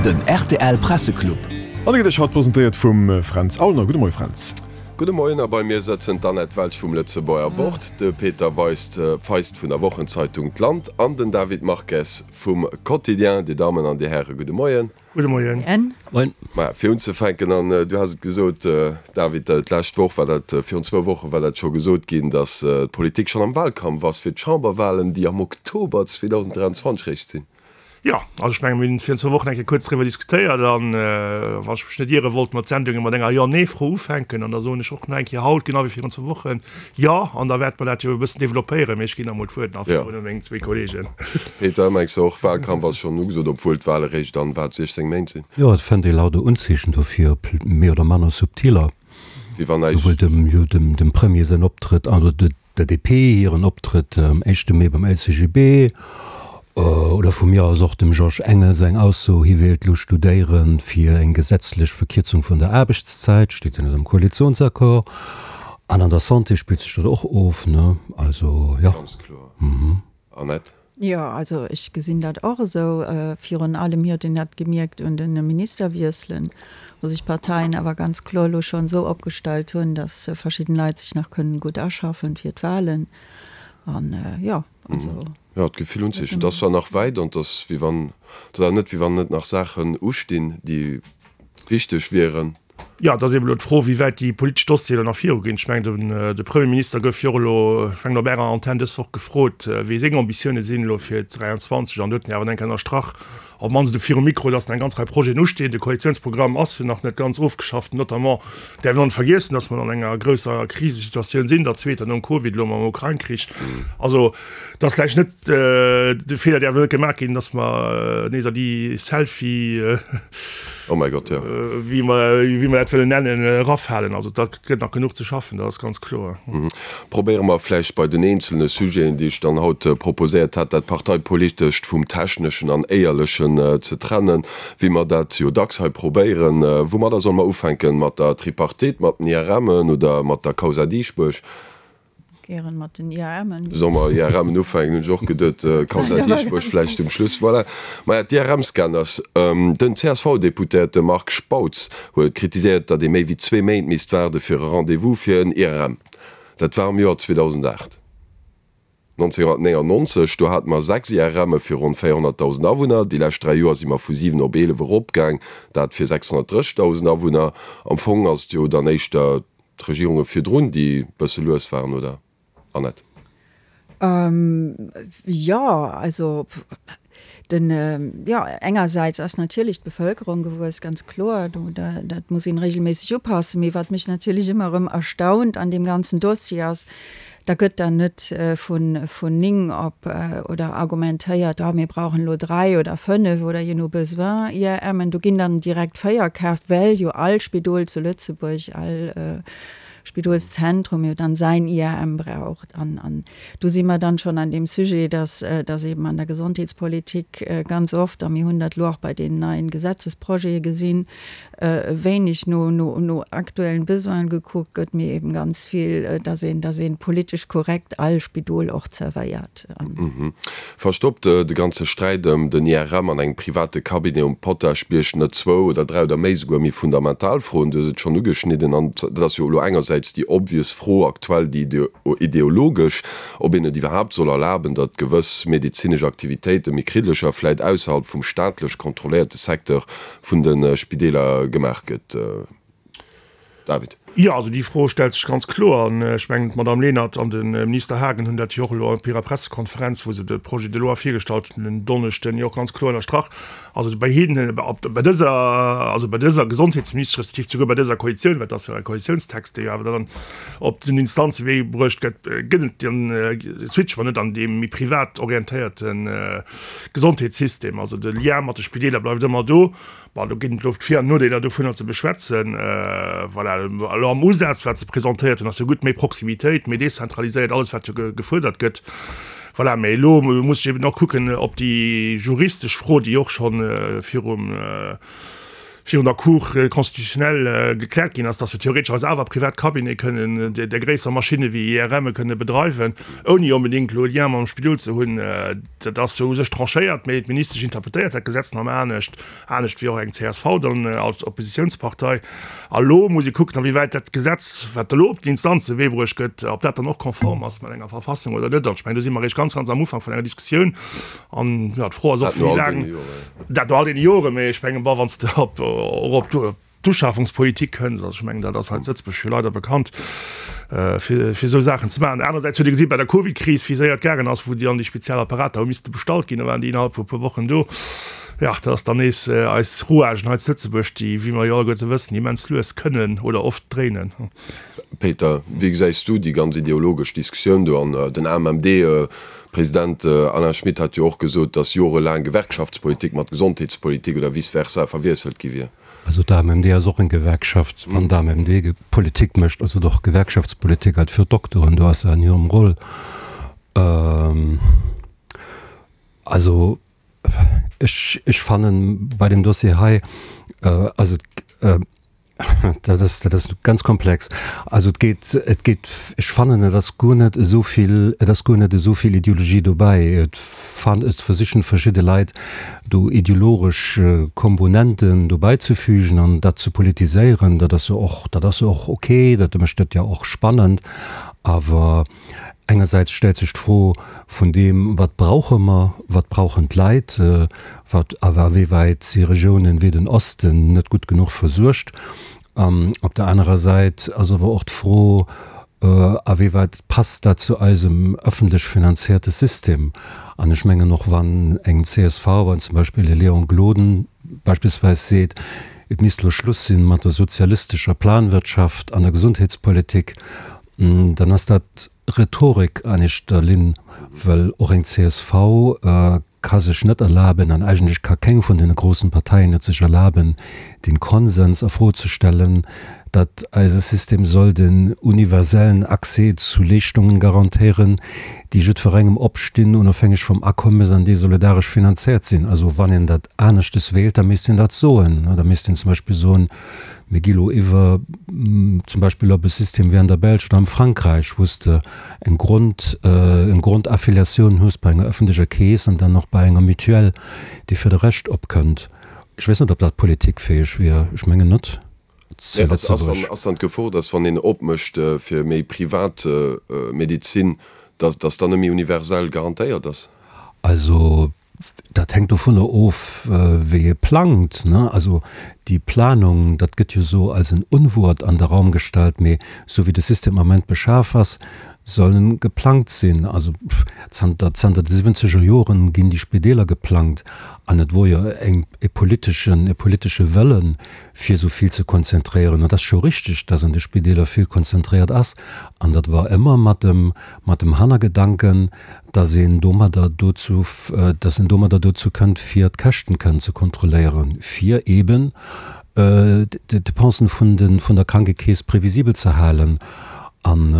Den rtl Presseclub. An e gëtt Iech haut presentéiert vum Fränz Aulner. Gudde Moie Fränz. Gudde Moien a bei mir sëtzen d'Annette Welsch vum Lëtzebuerger Wort, de Peter Weist Feist vun der Wochenzeitung D'Land an den David Marques vum Quotidien. Dir Dammen an Dir Häre gudde Moien. Gudde Moien. Moien. Maja, fir unzefänken, an du has et gesot, David, d'lescht Woch war dat, virun zwou Woche war dat scho gesot ginn, datt d'Politik schonn am Wahlkampf ass fir d'Chamberwahlen, déi am Oktober 2023 réischt sinn. Jo, also ech menge mir hunn virun zwou Wochen eng Kéier kuerz driwwer diskutéiert an, wann ech mech net iere, wollte mer d'Sendunge mat enger Jo-Nee-Fro ufänken an da soen ech och nach eng Kéier haut, genau wéi virun zwou Wochen, Jo, an da wäerte mer dat jo e bëssen developpéieren, mee ech ginn da mol d'Wuert nach virun u meng zwee Kolleegen. Peter, mengs de och, Wahlkampf ass schonn ugesot, obwuel d'Wahle réischt an, wat, 16 Méint sinn? Jo, et fënnt ee lauter Unzeechen dofir, op méi oder manner subtiler, Wéi wann näischt. souwuel dem, jo, dem, dem Premier säin Optrëtt, also de, Der DP hiren Optrëtt am éischte Mee beim LCGB, oder vu mir aus och dem Georges Engel seng Ausso, hie wéilt lo studéiere fir eng gesetzlech Verkierzung vun der Aarbechtszäit, steet jo net am Koalitionsaccord. An an der Santé spillt sech dat och of, ne? Also, jo. Ganz kloer. Annette? Jo, also ech gesinn dat och esou. Virun allem huet een dat gemierkt un de Ministerwiesselen, wou sech d'Parteien awer ganz kloer elo schonn esou opgestallt hunn, datt verschidden Leit sech nach kënnen gutt aschaffen fir d'Wahlen. An jo, also. Jo, d'Gefill hunn sech. Et ass zwar nach wäit an et ass wéi wann, et ass awer net wéi wann net nach Saachen ustinn, déi wichteg wieren. Jo, et ass eeben elo d'Fro, wéi wäit déi politesch Dossieren elo nach viruginn. Ech mengen, de Premierminister gouf jo och elo, ech mengen op Ärer Antenn dës Woch gefrot, wéi seng Ambitioune sinn elo fir 23. An do huet en jo awer eng Kéier ënnerstrach, op d'mannst elo virum Mikro, datt nach eng ganz Rei Projeten ustinn. De Koalitiounsprogramm ass jo nach net ganz ofgeschafft. Notamment däerf een och net vergiessen, datt mer an enger grousser Krisesituatioun sinn, der zweeter nom Covid, elo mam Ukrain-Krich. Also Et ass vläicht net, de Feeler däerf elo net gemaach ginn, datt mer nees a déi Selfie, Oh mäi Gott, jo. wéi mer, wéi mer dat wëllen nennen, erafalen. Also da gëtt nach genuch ze schaffen, dat ass ganz kloer. Probéiere mer vläicht bei den eenzelne Sujeten, déi ech dann haut proposéiert hat, dat Parteipolitescht vum Techneschen an Éierlechen ze trennen, wéi mer dat jo dacks hei probéieren. Woumadder solle mer ufänken? Mat der Tripartite, mat den IRMen oder mat der Causa Dieschbourg? Gären mat den IRMen. Solle mer IRMen ufänken, hunn ech och geduet. Causa Dieschbourg vläicht um Schluss. Voilà. Maja, d'IRM-Scanners. Den CSV-Deputéierte Marc Spautz huet kritiséiert, datt ee méi wéi zwee Méint misst waarde fir e Rendez-vous fir en IRM. Dat war am Joer 2008. 1999, do hate mer 6 IRMe fir ronn 400.000 Awunner. Déi lescht dräi Joer si mer vu 7 op 11 eropgaang, dat fir 630.000 Awunner. Am Fong ass et jo dann éischter D'Regierunge virdrun, déi bësse lues waren, oder, Annette? Jo, also den, jo, engersäits ass natierlech d'Bevëlkerung gewuess, ganz kloer, do, dat muss een regelméisseg upassen. Mee wat mech natierlech ëmmer erëm erstaunt an deem ganzen Dossier ass, Da gëtt dann net vun 9 op oder argumentéiert, oh mir brauchen elo 3 oder 5 oder je no Besoin IRMen. Do ginn dann direkt 4 kaaft, well jo all Spidol zu Lëtzebuerg, all Spidolszentrum jo dann säin IRM braucht. An do si mer dann schonn an deem Sujet, dass dass eben an der Gesondheetspolitik ganz oft, a mir hunn dat elo och bei deenen neien Gesetzesprojete gesinn, wéineg no, no, no aktuellen Besoinen gekuckt gëtt, mee eben ganz vill, dass een, dass een politesch korrekt all Spidol och zerwéiert. Verstoppt de ganze Sträit ëm den IRM an engem private Cabinet um Potaschbierg net zwou oder dräi oder méi souguer méi fundamental Froen? Du hues et schonn ugeschnidden, an dat ass jo elo engersäits déi obvious Fro aktuell, déi ideologesch, ob een et iwwerhaapt soll erlaben, datt gewëss medezinesch Aktivitéite méi kriddlecher vläit ausserhalb vum staatlech kontrolléierte Secteur vun de Spideeler gemaach gëtt. David. Jo, also déi Fro stellt sech ganz kloer. An ech mengen, d'Madame Lenert an de Minister Haagen hunn dat jo och elo op hirer Pressekonferenz, wou se de Projet de loi virgestallt hunn en Donneschden, jo och ganz kloer ënnerstrach. Also bei hinnen, bei dëser, also bei dëser Gesondheetsministesch, respektiv souguer bei dëser Koalitioun, well et ass jo e Koalitiounstext, dee jo awer dann op den Instanzewee bruecht gëtt, gëtt et den Switch mer net an deem méi privat orientéierten, Gesondheetssystem, also de Lien mat de Spideeler bleift ëmmer do. Bon, do ginn et elo d'Vir an Nodeeler dovunner ze beschwätzen. Voilà, elo am Usaz, wat se presentéiert hunn, ass jo gutt, méi Proximitéit, méi dezentraliséiert, alles wat jo gefuerdert gëtt. Voilà, mä elo muss ech eben och kucken, ob déi juristesch Fro, déi och scho virum. virun der Cour constitutionnelle gekläert ginn ass, dass jo theoretesch awer privat Cabinete kënnen där gréisser Maschinne wéi IRMe kënne bedreiwen, ouni onbedéngt elo e Lien mam Spidol ze hunn. Dat ass jo u sech tranchéiert, mee d'Ministesch interpretéiert dat Gesetz nach ëmmer anescht, anescht wéi och eng csv dann als Oppositiounspartei. A lo muss ee kucken, awéiwäit dat Gesetz, wat elo op den Instanzewee bruecht gëtt, ob dat dann och konform ass mat enger Verfassung oder net. An ech mengen, do si mer eréischt ganz, ganz am Ufank vun enger Diskussioun. An jo, d'Fro ass och, wéi laang. Dat no all deene Joren, mee ech mengen, bon, wann s de op, och op d'Uschafungspolitik kënns, also ech mengen, dat ass hei zu Lëtzebuerg jo leider bekannt, fir, fir esou Saachen ze maachen. Anersäits huet ee gesi bei der Covidkris, wéi séier et gaangen ass, wou déi dann déi speziell Apparater hu misste bestallt ginn, da waren déi innerhalb vu e puer Wochen do. Jo, dat ass dann nees eis Rouagen hei zu Lëtzebuerg, déi, wéi mer jo alleguerte wëssen, immens lues kënnen oder oft dréinen. Peter, wéi gesäis du déi ganz ideologesch Diskussioun do? An den AMMD-President Alain Schmit hat jo och gesot, datt jorelaang Gewerkschaftspolitik mat Gesondheetspolitik oder vice versa verwiesselt gi wier. Also d'AMMD ass och eng Gewerkschaft. Wann d'AMMD Politik mécht, ass et och Gewerkschaftspolitik halt fir d'Dokteren. Do ass se an hirem Rôle. Also ech, ech fannen bei deem Dossier hei, also Dat ass, dat ass ganz komplex. Also et geet, et geet, ech fannen, et ass guer net esou vill, et ass guer net esou vill Ideologie dobäi. Et fan, et versichen verschidde Leit do ideologesch Komponenten dobäizefügen an dat ze politiséieren. Dat ass jo och, dat ass jo och okay, dat mécht et jo och spannend. Awer Engersäits stellt sech d'Fro vun deem, Wat brauche mer, wat brauchen d'Leit, wat a wéiwäit si Regiounen wéi den Osten net gutt genuch versuergt? An op der anerer Säit ass awer och d'Fro, A wéiwäit passt dat zu eisem ëffentlech finanzierte System? An ech mengen, och wann eng csv, wann zum Beispill e Léon Gloden beispillsweis seet, et misst elo Schluss sinn mat der sozialistescher Planwirtschaft an der Gesundheetspolitik, Dann ass dat Rhetorik an éischter Linn, well och eng csv ka sech net erlaben, an eigentlech ka keng vun deene groussen Parteien et sech erlaben, den Konsens a Fro ze stellen, datt eise System soll den universellen Accès zu Leeschtungen garantéieren, déi jiddwerengem opstinn, onofhängeg vum Akommes, an déi solidaresch finanziert sinn. Also wann een dat aneschtes wéilt, da misst een dat soen. Da misst een zum Beispill soen, Mir gi lo iwwer zum Beispill op e System wéi an der Belsch oder am Frankräich, wou s de eng Grond, eng Grondaffiliatioun hues bei enger ëffentlecher Keess an dann och bei enger Mutuelle, déi fir de Rescht opkënnt. Ech weess net, ob dat politikfäeg wier. Ech mengen net zu Lëtzebuerg. Ass dann d'Gefor, datt wann een opmécht fir méi privat Medezin, datt dann net méi universell garantéiert ass? Also Dat hänkt dovunner of, wéi ee plangt. Also déi Planung, dat gëtt jo esou als en Unwuert an de Raum gestallt, mee esou wéi de System am Ament beschaf ass, soll en geplangt sinn. Also zanter, zanter de siwwenzeger Joren ginn déi Spideeler geplangt an et wor jo eng, e politeschen, e politesche Wëllen, fir esou vill ze konzentréieren. An et ass scho richteg, dass an de Spideeler vill konzentréiert ass an dat war ëmmer mat dem, mat dem Hannergedanken, dass een domadder dozou, dass een domadder dozou kënnt, fir d'Käschten kënnen ze kontrolléieren, fir eeben d'Depensen vun de, vun der Krankekeess previsibel ze halen. An,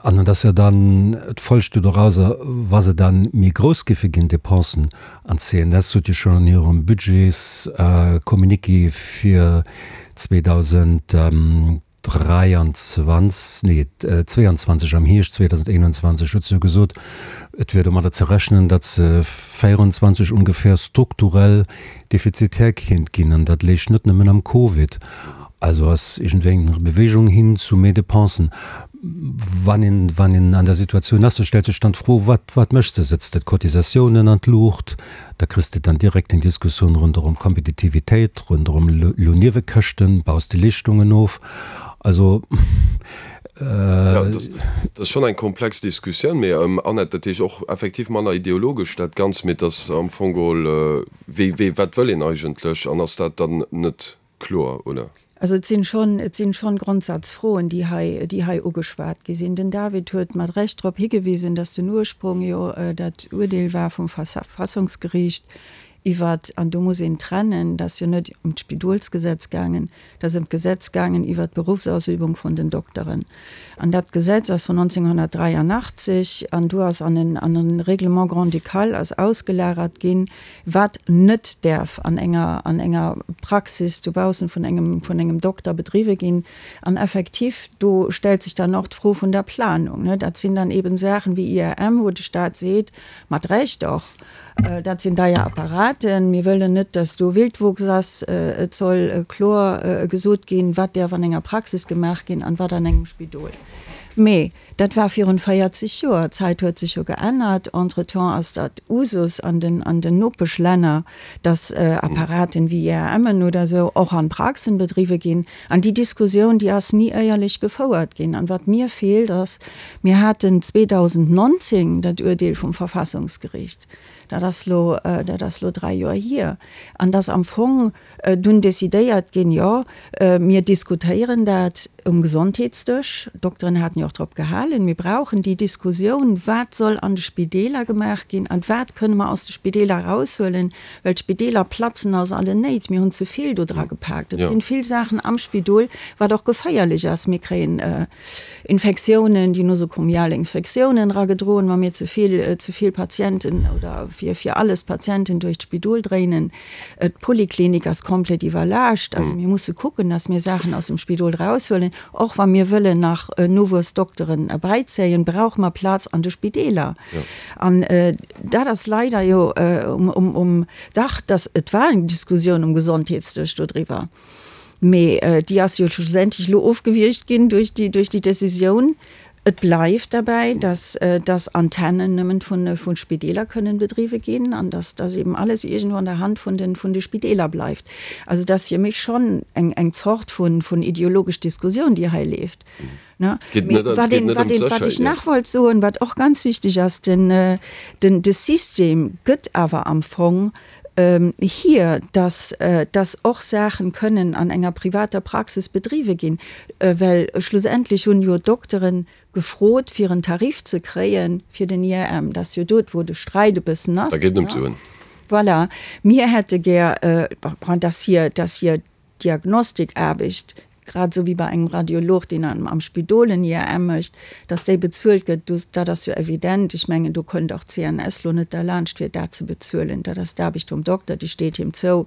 an et ass jo dann d'Folg do dorauser, wa se dann méi grouss géife ginn, d'Depensen, an d'CNS sot jo schonn an hirem Budgetscommuniqué fir 2000, 23, nee 22, am Hierscht 2021 huet se jo gesot, et wier domadder ze rechnen, datt se 24 ongeféier strukturell defizitär kéint ginn. An dat léich net nëmmen am Covid. Also ass iergendwéi eng Bewegung hin zu méi Depensen. Wann een, wann een an der Situatioun ass, da stellt sech dann d'Fro, wat, wat méchs de? Sëtz de d'Cotisatiounen an d'Luucht? Da kriss de dann direkt eng Diskussioun ronderëm Kompetitivitéit, ronderëm Lounniewekäschten, baus de Leeschtungen of. Also. Jo, dat ass schonn eng komplex Diskussioun. Mee Annette, dat heescht och effektiv manner ideologesch dat Ganzt, mee et ass am Fong geholl, wéi, wéi, wat wëll een eigentlech an ass dat dann net kloer, oder? Also et sinn schonn, et sinn schonn Grondsatzfroen, déi hei, déi hei ugeschwat gi sinn. Den David huet mat Recht drop higewisen, dass den Ursprung jo dat Uerdeel war vum Verfassungsgericht. iwwert, an do muss een trennen, et ass jo net ëm d'Spidolsgesetz gaangen, et ass ëm d'Gesetz gaangen iwwert d'Beruffsausübung vun den Dokteren. An dat Gesetz ass vun 1983 an do ass an en, an e Règlement grand-ducal ass ausgelagert ginn, wat net däerf an enger, an enger Praxis dobaussen vun engem, vun engem Dokter bedriwwe ginn. An effektiv, do stellt sech dann och d'Fro vun der Planung, ne. Dat sinn dann eben Saachen wéi IRM, wou de Stat seet, mat Recht och, dat sinn deier Apparaten, mir wëllen net, dass do Wildwuchs ass, et soll kloer gesot ginn, wat däerf an enger Praxis gemaach ginn an wat an engem Spidol. Mee dat war virun 40 Joer. D'Zäit huet sech jo geännert. Entretemps ass dat Usus an den, an den Nopeschlänner, dass Apparaten wéi IRMen oder esou och an Praxen bedriwwe ginn. An déi Diskussioun, déi ass ni éierlech gefouert ginn. An wat mir feelt ass, mir haten 2019 dat Uerdeel vum Verfassungsgericht, dat ass lo, dat ass lo dräi Joer hier, an dass am Fong dunn decidéiert ginn, jo, mir diskutéieren dat um Gesondheetsdësch, d'Dokteren haten jo och drop gehalen, mir brauchen déi Diskussioun, wat soll an de Spideeler gemaach ginn an wat kënne mer aus de Spideeler eraushuelen, well d'Spideeler platzen aus allen Néit. Mir hunn ze vill do dra gepaakt. Et sinn vill Saachen am Spidol, wat och geféierlech ass. Mir kréien Infektiounen, déi nosokomial Infektiounen eragedroen, wa mir ze vill, ze vill Patienten oder fir, fir alles Patienten duerch d'Spidol dréinen. D'Poliklinik ass komplett iwwerlaascht. Also mir musse kucken, dass mir Saachen aus dem Spidol eraushuelen. Och wa mir wëllen nach Nowuessdokteren erbäizéien, brauche mer Plaz an de Spideeler. An dat ass leider jo um, dach, dass, et war eng Diskussioun um Gesondheetsdësch dodriwwer, mee déi ass jo schlussendlech elo ofgewiergt ginn duerch déi, duerch déi Décisioun. Et bleift derbäi, dass, dass Antennen nëmmen vun, vu Spideeler kënnen bedriwwe ginn an dass, dass eben alles iergendwou an der Hand vun den, vun de Spideeler bleift. Also dat ass fir mech schonn eng, eng Zort vun, vun ideologesch Diskussioun, déi hei leeft. Ne? Geet net, Wat geet een, net wat ëm een, wat ech d'Sécherheet, nach wollt soen, wat och ganz wichteg ass, den, den, de System gëtt awer am Fong hier, dass, dass och Saachen kënnen an enger privater Praxis bedriwwe ginn, well schlussendlech hunn jo d'Dokteren gefrot, fir en Tarif ze kréie fir den IRM. Dat ass jo dot, wou de Sträit e bëssen ass. Da geet et ëm d'Suen. Voilà. Mir hätte gär, bon, dass hir, dass hir Diagnostikaarbecht, grad esou wéi bei engem Radiolog, deen am Spidol en IRM mécht, dass déi bezuelt gëtt, dat ass jo evident. Ech mengen, do kënnt och d'CNS lo net derlaanscht, fir dat ze bezuelen. Dat ass d'Aarbecht vum Dokter, déi steet him zou.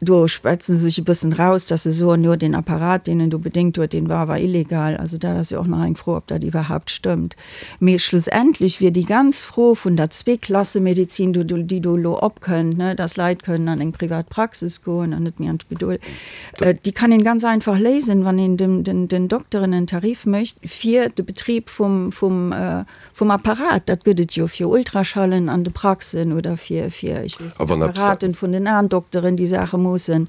Do schwätze se sech e bëssen raus, dass se soen, jo, deen Apparat, deen en do bedéngt huet, deen war awer illegal. Also dat ass jo och nach eng Fro, ob dat iwwerhaupt stëmmt. Mee schlussendlech wier déi ganz Fro vun der Zweeklassemedizin, déi do elo opkënnt, dass Leit kënnen an eng privat Praxis goen an net méi an d'Spidol, déi kann een ganz einfach léisen, wann een den Dokteren en Tarif mécht fir de Betrib vum Apparat. Dat gëtt et jo fir Ultraschallen an de Praxen oder fir, ech weess net, Apparaten vun den Aendokteren, déi Saache moossen.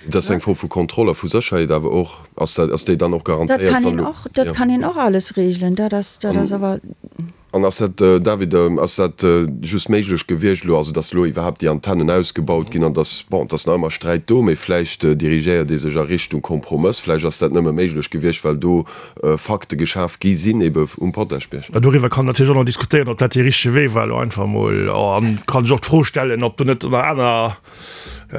Dat ass eng Fro vu Kontroll a vu Sécherheet awer och. Ass dat, ass déi dann och Dat garantéiert, kann wann een elo, och, dat jo. kann een och alles regelen. Dat ass, dat ass awer. An ass dat, David, ass dat just méiglech gewiescht elo, also datt elo iwwerhaapt déi Antennen ausgebaut ginn an datt, bon, et ass nach ëmmer Sträit do, mee vläicht dirigéiert ee sech a Richtung Kompromëss, vläicht ass dat nëmme méiglech gewiescht, well do Fakte geschaf gi sinn, ebe um Potaschbierg. Doriwwer kann natierlech och nach diskutéieren, ob dat dee richtege Wee war elo einfach emol. An kann sech och d'Fro stellen, ob do net nach aner,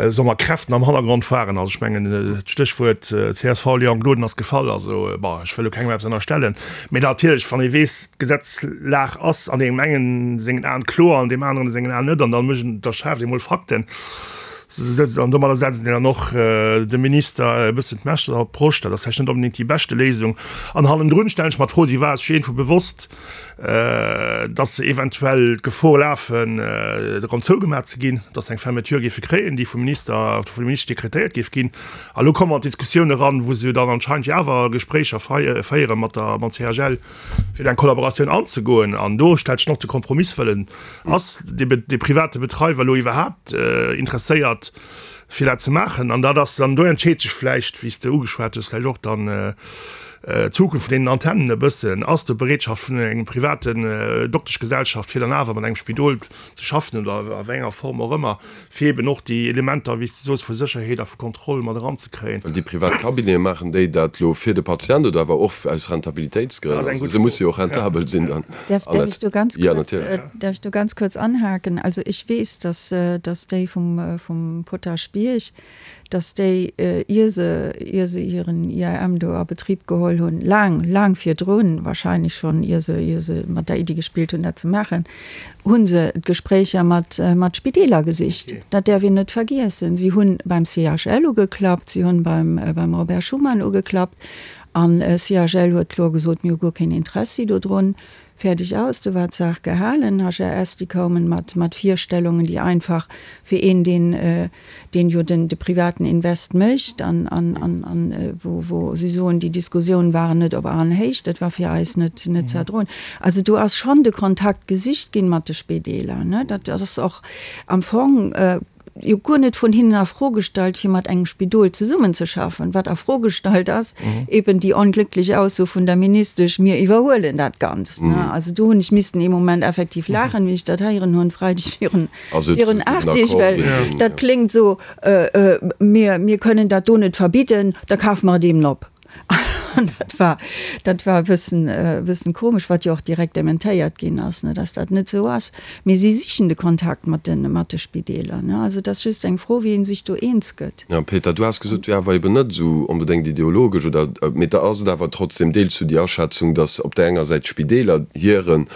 soe mer, Kräften am Hannergrond waren. Also ech mengen, d'Stéchwuert csv Léon Gloden ass gefall. Also, bon, ech wëll elo kengem eppes ënnerstellen, mee natierlech, wann ee weess, d'Gesetzlag ass an deem engen sengen Aen kloer, an deem aneren sengen Aen net, an da mécht een, da schaaft ee mol Fakten an domadder setzt een dann och dem Minister e bëssen d'Messer op d'Broscht. Dat ass vläicht net onbedéngt déi beschte Léisung. An hannendrun stellen ech mer d'Fro, si war sech iergendwou bewosst, dass se eventuell d'Gefor lafen, erëm zougemaach ze ginn, dass se eng Fermeture géife kréien, déi vum Minister oder vun der Ministesch dekretéiert géif ginn. A lo komme mer an d'Diskussioun eran, wou se jo dann anscheinend jo awer Gespréicher féiere mat der, mam CHL, fir eng Kollaboratioun anzegoen. An do stellt sech och de Kompromisswëllen, Ass dee private Betreiwer elo iwwerhaapt interesséiert, fir dat ze maachen? An dat ass dann, do entscheet sech vläicht, wéi s de ugeschwat hues, vläicht och dann. D'Zukunft vun deenen Antennen e bëssen, ass do Bereetschaft vun engem privaten Dokteschgesellschaft fir dann awer mat engem Spidol ze schaffen oder a wéi enger Form och ëmmer, fir eben och déi Elementer, wéi s de soos, vu Sécherheet a vu Kontroll mat eranzekréien. Well déi privat Cabinete, maachen déi dat elo fir de Patient oder awer och aus Rentabilitéitsgrënn? Also se musse jo och rentabel sinn dann. Däerf ech do ganz kuerz, däerf ech do ganz kuerz anhaken? Also ech weess, dass, dass déi vum, vum Potaschbierg, dass déi, ier se, ier se hiren IRM do a Betrib geholl hunn, laang, laang virdrun, wahrscheinlech schonn ier se, ier se mat der Iddi gespillt hunn, dat ze maachen, hu se d'Gespréicher mat, mat Spideeler gesicht. Dat däerf een net vergiessen. Si hu beim CHL ugeklappt, si hunn beim, beim Robert Schuman ugeklappt an CHL huet kloer gesot, mir hu guer keen Interessi dodrun. Fäerdeg aus, do war d'Saach gehalen. HRS, déi koumen mat, mat Virstellungen, déi einfach fir een, deen, deen jo den, de privaten Invest mécht an, an, an, an wou, wou si soen, déi Diskussionen waren net op Aenhéicht, dat war fir eis net, net ze erdroen. Also do ass schonn de Kontakt gesicht ginn mat de Spedeeler, ne. Dat ass och am Fong jo guer net vun hinnen a Fro gestallt, fir mat engem Spidol zesummenzeschaffen. Wat a Fro gestallt ass, eben déi onglücklich Ausso vun der Ministesch, mir iwwerhuelen dat Ganzt. Also do hunn ech missten ee Moment effektiv laachen, wéi ech dat héieren hunn, Freideg virun, virun 8 Deeg, well dat kléngt esou, mir, mir kënnen dat do net verbidden, da kafe mer et eben op. An dat war, dat war e bëssen, e bëssen komesch, wat jo och direkt dementéiert ginn ass, ne, dass dat net esou ass. Mee si sichen de Kontakt mat de, mat de Spideeler, ne. Also et ass just eng Fro, wéi ee sech do eens gëtt. Jo, Peter, du has gesot, et wier awer eben net esou onbedéngt ideologesch oder, mee da ass et awer trotzdem, deels du déi Aschätzung, dass op där enger Säit d'Spideeler hire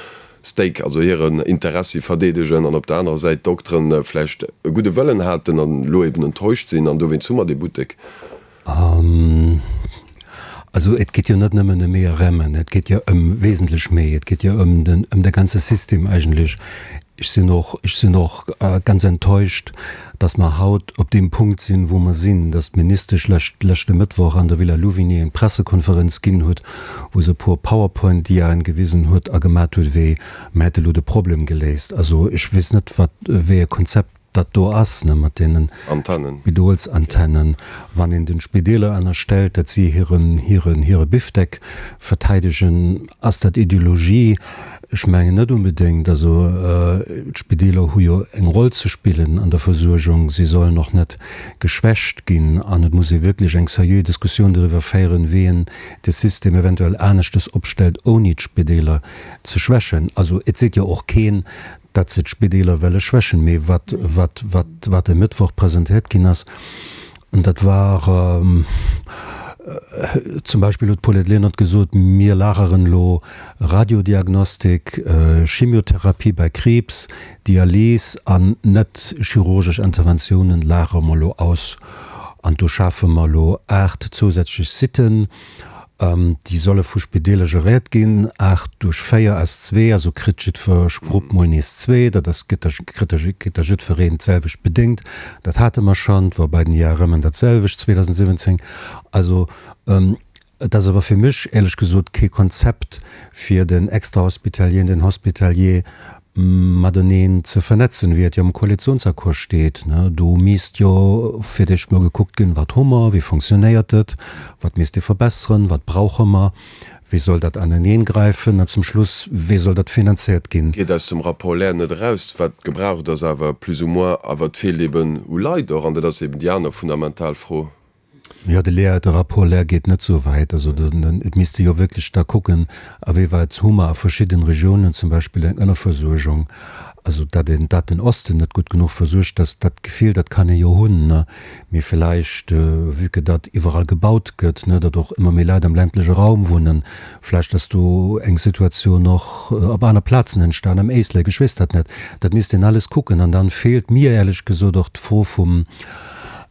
Stake, also hiren Interessi verdeedegen an op der anerer Säit d'Dokteren vläicht e gudde Wëllen haten an elo eben enttäuscht sinn an dowéinst hu mer dee Buttek. Also et geet jo net nëmmen ëm IRMen, et geet jo ëm wesentlech méi. Et geet jo ëm den, ëm de ganze System eigentlech. Ech sinn och, ech sinn och ganz enttäuscht, dass mer haut op deem Punkt sinn, wou mer sinn, dass d'Ministesch lescht, leschte Mëttwoch an der Villa Louvigny eng Pressekonferenz ginn huet, wou se e puer Powerpoint-Diaen gewisen huet a gemat huet, wéi mer hätte lo de Problem geléist. Also ech weess net, wat, wéi e Konzept dat do ass, ne, mat deenen Spidolsantennen, wann een den Spideeler ënnerstellt, datt si hiren, hiren, hire Bifdeck verteidegen, ass dat Ideologie? Ech mengen net onbedéngt. Also d'Spideeler hu jo eng Roll ze spillen an der Versuergung, si sollen och net geschwächt ginn an et muss ee wierklech eng seriö Diskussioun doriwwer féieren, wéi een de System eventuell aneschtes opstellt, ouni d'Spideeler ze schwächen. Also et seet jo och keen, datt se d'Spideeler welle schwächen, mee wat, wat, wat, wat e Mëttwoch presentéiert ginn ass, dat war zum Beispill huet d'Paulette Lenert gesot, mir lageren elo Radiodiagnostik, Chemiotherapie bei Kriibs, Dialys an net chirurgesch Interventiounen lagere mer elo aus an do schafe mer elo 8 zousätzlech Sitten. Déi solle vu Spideeler geréiert ginn. 8 duerch 4 ass zwee, also kritt jiddwer Grupp mol nees zwee. Dat ass, gëtt da, kritt da, kritt da jiddwereen d'selwecht bedéngt. Dat hate mer schonn, et war bei den IRMen dat selwecht 2017. Also, et ass awer fir mech éierlech gesot kee Konzept, fir den Extrahospitalier an den Hospitalier mateneen ze vernetzen, wéi et jo am Koalitionsaccord steet. Do misst jo fir d'éischt mol gekuckt ginn, Wat hu mer, wéi fonctionnéiert et, wat misst ee verbesseren, wat brauche mer, wéi soll dat aneneengräifen an zum Schluss, wéi soll dat finanziert ginn. Geet aus dem Rapport Lehr net eraus, wat gebraucht ass, awer plus ou moins, awer et feelt eben u Leit och, an dat ass eben déi aner fundamental Fro. Jo, de Lehr, de Rapport Lehr geet net esou wäit. Also et misste jo wierklech da kucken, awéiwäit hu mer a verschidden Regiounen zum Beispill eng Ënnerversuergung. Also datt een, datt den Osten net gutt genuch versuergt ass, dat Gefill, dat kann ee jo hunn, ne. Mee villäicht, vue que datt iwwerall gebaut gëtt, ne, datt och ëmmer méi Leit am ländleche Raum wunnen, vläicht ass do eng Situatioun och op aner Plazen entstan, am Éislek, ech weess dat net. Dat misst een alles kucken. An dann feelt mir éierlech gesot och d'Fro vum,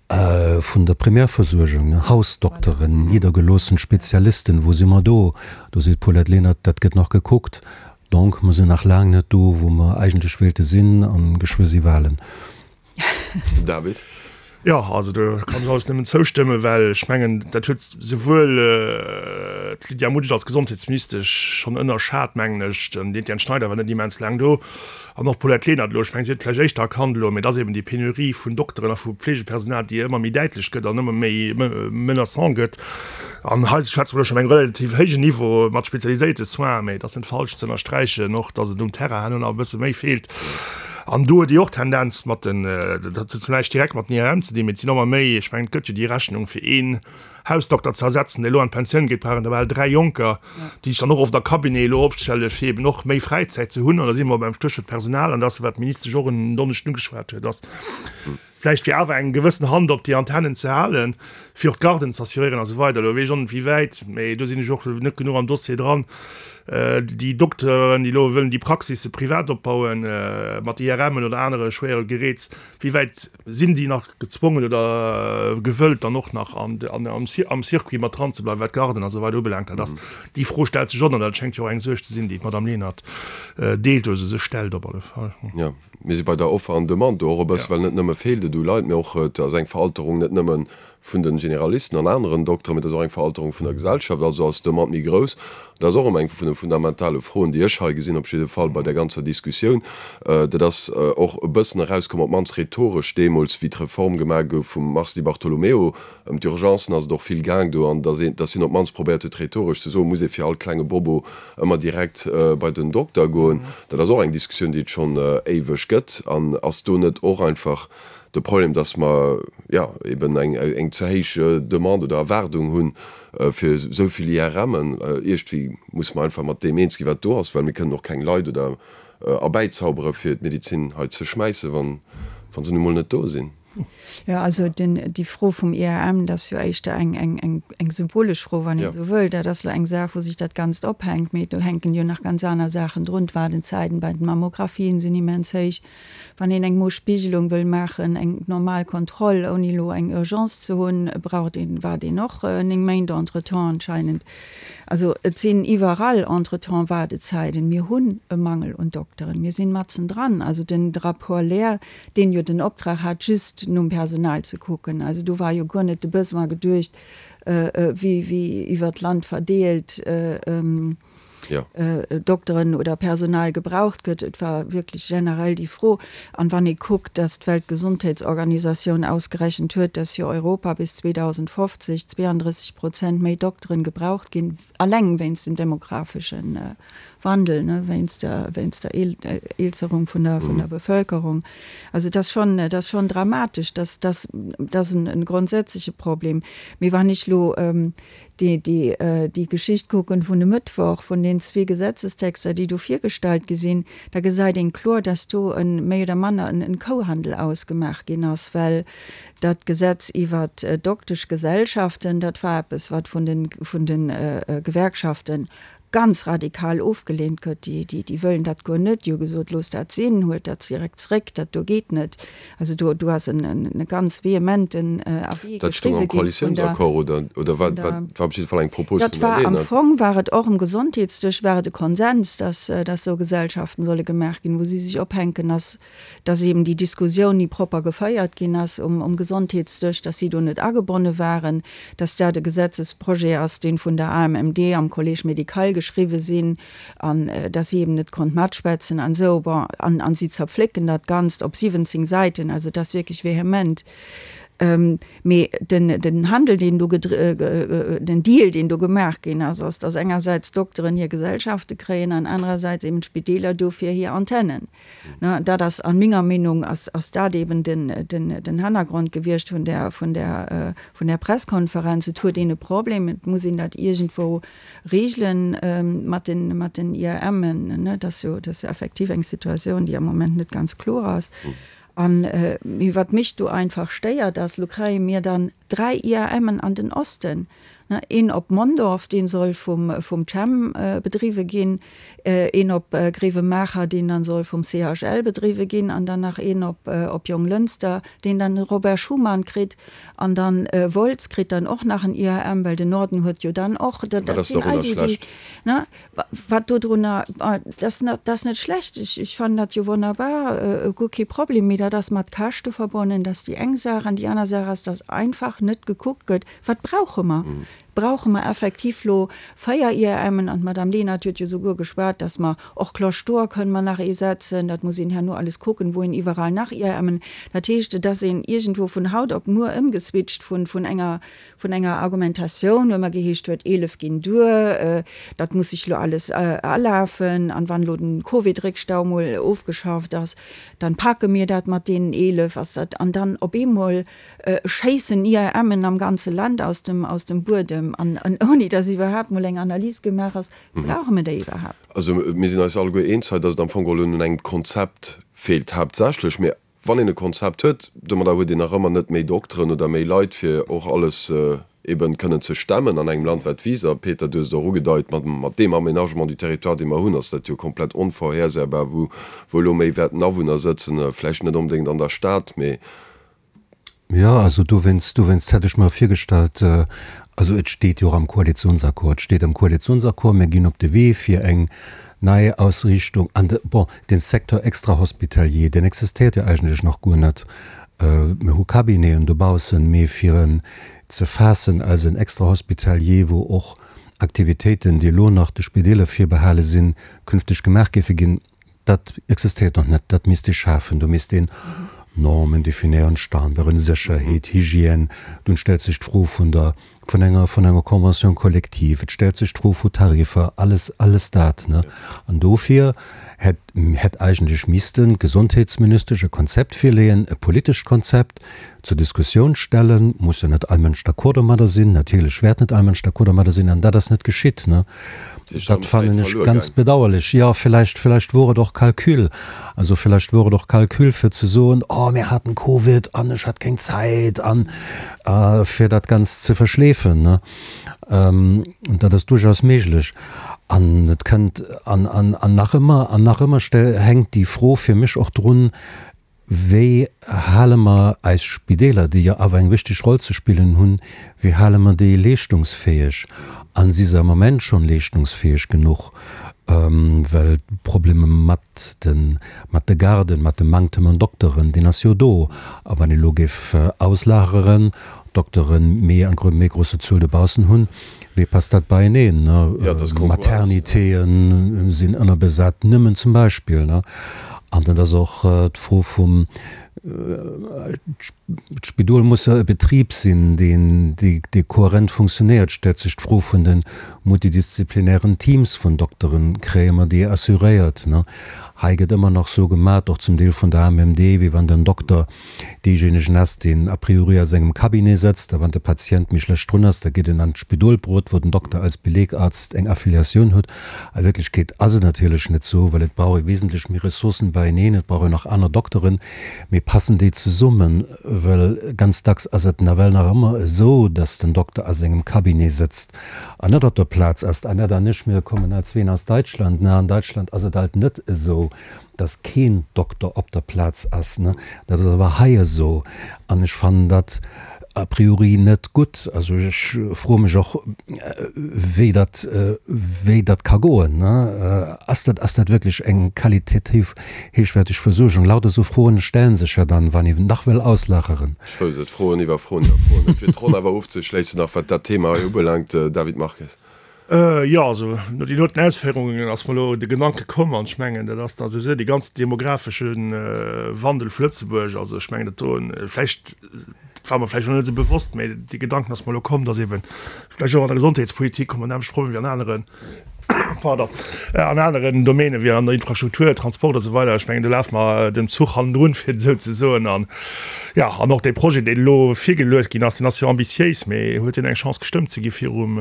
Vun der Primärversuergung, Hausdokteren, niddergeloossen Spezialisten, wou si mer do? Do seet d'Paulette Lenert, dat gëtt nach gekuckt. Donc, mer sinn nach laang net do, wou mer eigentlech wéilte sinn, a geschwë si Wahlen. David. Jo, also do kann ech alles nëmmen zoustëmmen, well ech mengen, dat huet souwuel. d'Lydia Mutsch als Gesondheetsministesch schonn ënnerschat, mengen ech. Den Etienne Schneider war net immens laang do an och d'Paulette Lenert elo. Ech mengen, si huet et vläicht éischter erkannt elo, mee et ass eben déi Penurie vun Dokteren a vu Pflegepersonal, déi ëmmer méi däitlech gëtt an ëmmer méi menaçant gëtt. An hei schwätze mer elo schonn op engem relativ héijen Niveau mat spezialiséierte Soins, mee et ass net falsch ze ënnersträichen och, datt et um Terrain herno nach e bësse méi feelt. An do huet Dir och Tendenz mat den, dat huet zwar näischt direkt mat den IRM ze dinn, mee et sinn ëmmer méi, ech mengen, et gëtt jo déi Rechnung fir een Hausdokter ze ersetzen, dee elo an d'Pensioun geet, brauch een der bal 3 Jonker, déi sech dann och oft a Cabinet elo opstelle fir eben och méi Fräizäit ze hunn. An da si mer beim Stéchwuert Personal, an dat ass wat d'Ministesch och en Donneschden ugeschwat huet, ass vläicht fir awer eng gewëssen Hand op déi Antennen ze halen, fir och d'Garden ze assuréieren a sou weider. Elo weess ech och net wéi wäit, mä do sinn ech och net genuch am Dossier dran, déi Dokteren, déi elo wëllen déi Praxisse privat opbauen, mat IRMen oder anere schwéiere Geräts, Wéi wäit sinn déi nach gezwongen oder gewëllt, dann och nach am Circuit mat dran ze bleiwen, wat d'Garden a sou weider ubelaangt? Dat ass, déi Fro stellt sech och an dat schéngt jo och eng Suerg ze sinn, déi d'Madame Lenert deelt oder se sech stellt op alle Fall. Jo, mir si bei der Offer an Demande do och e bësse, well net nëmme feelt et u Leit, mee och et ass eng Veralterung net nëmme vun de Generalisten an aneren Dokteren, mee et ass och eng Veralterung vun der Gesellschaft, also ass d'Demande méi grouss. Dat ass och erëm eng vun de fundamentale Froen, déi ech hei gesinn, op jidde Fall bei där ganzer Diskussioun. Dat ass och e bëssen erauskomm, op d'mannst rhetoresch deemools, wéi d'Reform gemaach gouf vum Mars Di Bartolomeo. Ëm d'Urgencen ass et och vill gaang do, an dass een, dass hien op d'mannst probéiert huet, rhetoresch ze soen, muss ee fir all klenge Bobo ëmmer direkt bei den Dokter goen. Dat ass och eng Diskussioun, déi et schonn éiweg gëtt. An ass do net och einfach de Problem, dass mer, jo, eben eng, eng ze héich Demande oder Erwaardung hunn, fir esou vill IRMen. Iergendwéi musse mer einfach mat deem eens ginn, wat do ass, well mir kënnen och keng Leit oder erbäizaubere fir d'Medezin hei ze schmäissen, wann, wa se nu mol net do sinn. Jo, also den, déi Fro vum IRM, dat ass jo éischter eng, eng, eng, eng symbolesch Fro, wann een esou wëll. Dat ass elo eng Saach, wou sech dat Ganzt ophänkt, mee do hänken jo nach ganz aner Saachen drun. D'Waardezäiten bei den Mammographien sinn immens héich. Wann een eng Mospiegelung wëll maachen, eng normal Kontroll, ouni elo eng Urgence ze hunn, braucht een, waart een och 9 Méint entretemps anscheinend. Also et sinn iwwerall entretemps Waardezäiten. Mir hunn e Mangel un Dokteren. Mir sinn matzendran. Also den Rapport Lehr, deen jo den Optrag hat, just nom Personal ze kucken, also do war jo guer net de Besoin geduecht, wéi wéi iwwert d'Land verdeelt, Dokteren oder Personal gebraucht gëtt. Et war wierklech generell déi Fro. An wann ee kuckt, datt d'Weltgesondheetsorganisatioun ausgerechent huet, datt fir Europa bis 2050 32 Prozent méi Dokteren gebraucht ginn, alleng wéinst dem demografesche Wandel, wéinst der, wéinst der Eelzerung vun der, vun der Bevölkerung. Also et ass schonn, et ass schonn dramatesch. Dat, dat, dat ass en grondsätzleche Problem. Mee wann ech elo déi, déi, déi Geschicht kucken vun e Mëttwoch, vun den zwee Gesetzestexter, déi do virgestallt gi sinn, da gesäit een kloer, dass do e méi oder manner en, en Kouhandel ausgemaach ginn ass, well dat Gesetz iwwert d'Dokteschgesellschaften, dat war eppes, wat vun den, vun de Gewerkschaften ganz radikal ofgelehnt gëtt, déi, déi, déi wëllen dat guer net, déi hu gesot, loosst dat sinn, huelt dat direkt zréck, dat do geet net. Also do, do ass en, en, e ganz vehementen Avis Dat stoung am geschriwwe ginn vun der, Koalitiounsaccord oder, oder war, vun war, der. war op jidde Fall eng Propos Dat vun der war am Lenert. Fong war et och um Gesondheetsdësch war et e Konsens, dass, dass esou Gesellschaften solle gemaach ginn, wou si sech ophänken, ass dass eben déi Diskussioun ni propper geféiert ginn ass um Gesondheetsdësch, dass si do net agebonne waren, dass dat e Gesetzesprojet ass, dee vun der AMMD am Collège médical geschriwwe sinn an dass si eben net konnt matschwätzen an esou. Bon, an si zerpflécken dat Ganzt op 17 Säiten, also et ass wierklech vehement. Mee den Handel, deen do, den Deal, deen do gemaach ginn ass, ass, dass engersäits d'Dokteren hir Gesellschafte kréien an anerersäits eben d'Spideeler dofir hir Antennen. Dat ass an menger Meenung ass ass dat eben den den den Hannergrond gewiescht vun där vun där vun där Presskonferenz. Et huet een e Problem, et muss een dat iergendwou regelen mat den mat den IRMen. Dat ass jo dat ass jo effektiv eng Situatioun, déi am Moment net ganz kloer ass. An mee wat mech do einfach stéiert ass, lo kréie mir dann 3 IAMen an den Osten, ne, een op Mondorf, dee soll vum vum Chem bedriwwe ginn, een op Grevenmacher, deen dann soll vum CHL bedriwwe ginn, an dann nach een op op Jonglënster, deen dann de Robert Schuman kritt, an dann Wolz kritt dann och nach en IAM, well den Norden huet jo dann och, dat dat sinn all déi déi, ne. Wat dodrunner, dat ass net schlecht, ech fannen dat jo wonnerbar, guer kee Problem, mee dat ass mat Käschte verbonnen, dat ass déi eng Saach. An déi aner Saach ass, dass einfach net gekuckt gëtt, wat brauche mer? Brauche mer effektiv lo 4 IRMen? An d'Madame Lenert huet jo souguer geschwat, dass mer och Cloche d'Or kënne mer nach ee setzen. Dat muss een herno alles kucken, wou een iwwerall nach IRMen. Dat heescht, et ass een iergendwou vun haut op muer ëmgeswitcht vun, vun enger, vun enger Argumentatioun, wou ëmmer geheescht huet, 11 ginn duer, dat muss sech lo alles alafen an wann elo den Covid-Réckstau mol ofgeschafft ass, dann packe mir dat mat deenen 11, ass dat, an dann op eemol schéissen IRMen am ganze Land aus dem, aus dem Buedem an, an ouni dass iwwerhaapt mol eng Analys gemaach ass, brauche mir déi iwwerhaapt? Also mir sinn eis alleguer eens hei, dass et am Fong geholl un engem Konzept feelt haaptsächlech. Mee wann een e Konzept huet, domadder huet een nach ëmmer net méi Dokteren oder méi Leit, fir och alles eben kënnen ze stemmen an engem Land wat wiisst. A Peter, du hues et och ugedeit, mat, mat deem Aménagement du territoire, dee mer hunn, ass dat jo komplett onvorhersäbar, wou, wou elo méi wäerten Awunner sëtzen, vläicht net onbedéngt an der Stad, mee Jo, also dowéinst, dowéinst hätt ech mer virgestallt, also et steet jo och am Koalitionsaccord, et steet am Koalitionsaccord, mir ginn op de Wee fir eng nei Ausriichtung an de, bon, dee Secteur extra-hospitalier, deen existéiert jo eigentlech nach guer net. Mir hu Cabineten dobaussen, mee fir en ze faassen als en Extra-hospitalier, wou och Aktivitéiten, déi elo nach de Spideeler virbehale sinn, künfteg gemaach géife ginn, Dat existéiert nach net, dat misst ee schafen. Do misst een Normen definéieren, Standarden, Sécherheet, Hygiène. Dunn stellt sech d'Fro vun der, vun enger, vun enger Convention collective, et stellt sech d'Fro vu Tariffer, alles, alles dat, ne. An dofir hätt, hätt eigentlech missten d'Gesondheetsministesch e Konzept virleeën, e politescht Konzept zur Diskussioun stellen. Muss jo net all Mënsch d'accord domadder sinn, natierlech wäert net all Mënsch d'accord domadder sinn, an dat ass net geschitt, ne. Dat fannen ech ganz bedauerlech. Jo, villäicht, villäicht wor et och Calcul. Also villäicht wor et och Calcul fir ze soen, oh mir haten Covid an ech hat keng Zäit an fir dat Ganzt ze verschleefen, ne. Dat ass duerchaus méiglech. An et kënnt, an, an, an nach ëmmer, an nach ëmmer hänkt déi Fro fir mech och drun, Wéi hale mer eis Spideeler, déi jo awer eng wichteg Roll ze spillen hunn, wéi hale mer déi leeschtungsfäeg? A si se am Moment schonn leeschtungsfäeg genuch? Well d'Probleme mat de mat de Garden, mat dem Manktem un Dokteren, deen ass jo do. A wann ee lo géif auslageren, Doktere méi eng méi grosse Zuel dobaussen hunn, wéi passt dat beieneen? Maternitéë sinn ënnerbesat, nëmmen zum Beispill. An dat ass och d'Fro vum, d'Spidol muss jo e Betrib sinn, deen, dee kohärent funktionéiert. Stellt sech d'Fro vun de multidisziplinären Teams vun Dokteren, kréie mer déi assuréiert? Hei gëtt ëmmer nach sou gemat, och zum Deel vun der AMMD, wéi wann den Dokter Deejéinegen ass, deen a priori a sengem Cabinet sëtzt, a wann de Patient méi schlecht drun ass, da geet en an d'Spidolbrot, wou den Dokter als Belegarzt eng Affiliatioun huet. A Wierklechkeet ass et natierlech net esou, well et brauch ee wesentlech méi Ressourcen beieneen, et brauch een och aner Dokteren. Mee passen déi zesummen? Well ganz dacks ass et nawell nach ëmmer esou, dass den Dokter a sengem Cabinet sëtzt an net op der Plaz ass. D'Annette an ech, mir kommen als zween aus Deutschland, ne? An Deutschland ass et alt net esou. dass keen Dokter op der Plaz ass, ne? Dat ass awer hei esou an ech fannen dat a priori net gutt. Also ech froe mech och, wéi dat, wéi dat ka goen, ne? Ass dat, ass dat wierklech eng qualitativ héichwäerteg Versuergung? Lauter esou Froen stellen sech jo dann, wann een nach wëll auslageren. Ech wouss et, Froen iwwer Froen iwwer Froen. Fir d'Ronn awer ofzeschléissen nach, wat dat Thema hei ubelaangt, David Marques. Jo, also no deenen doten Ausféierungen ass mer elo de Gedanke komm, an ech mengen, dat ass da souwisou dee ganzen demographesche Wandel vu Lëtzebuerg. Also ech mengen, dat do vläicht, dat war mer vläicht och net esou bewosst, mä dee Gedanken ass mer elo komm, datt eeben vläicht och an der Gesondheetspolitik hu mer nämmlecht Problem wéi an aneren, pardon, an aneren Domänen, wéi an der Infrastruktur, Transport a sou weider. Ech mengen, do lafe mer dem Zuch hannendrun, fir et esou ze soen. An Jo, an och dee Projet, deen elo virgeluecht ginn ass, deen ass jo ambitiéis, mee huet deen eng Chance gestëmmt ze gi virum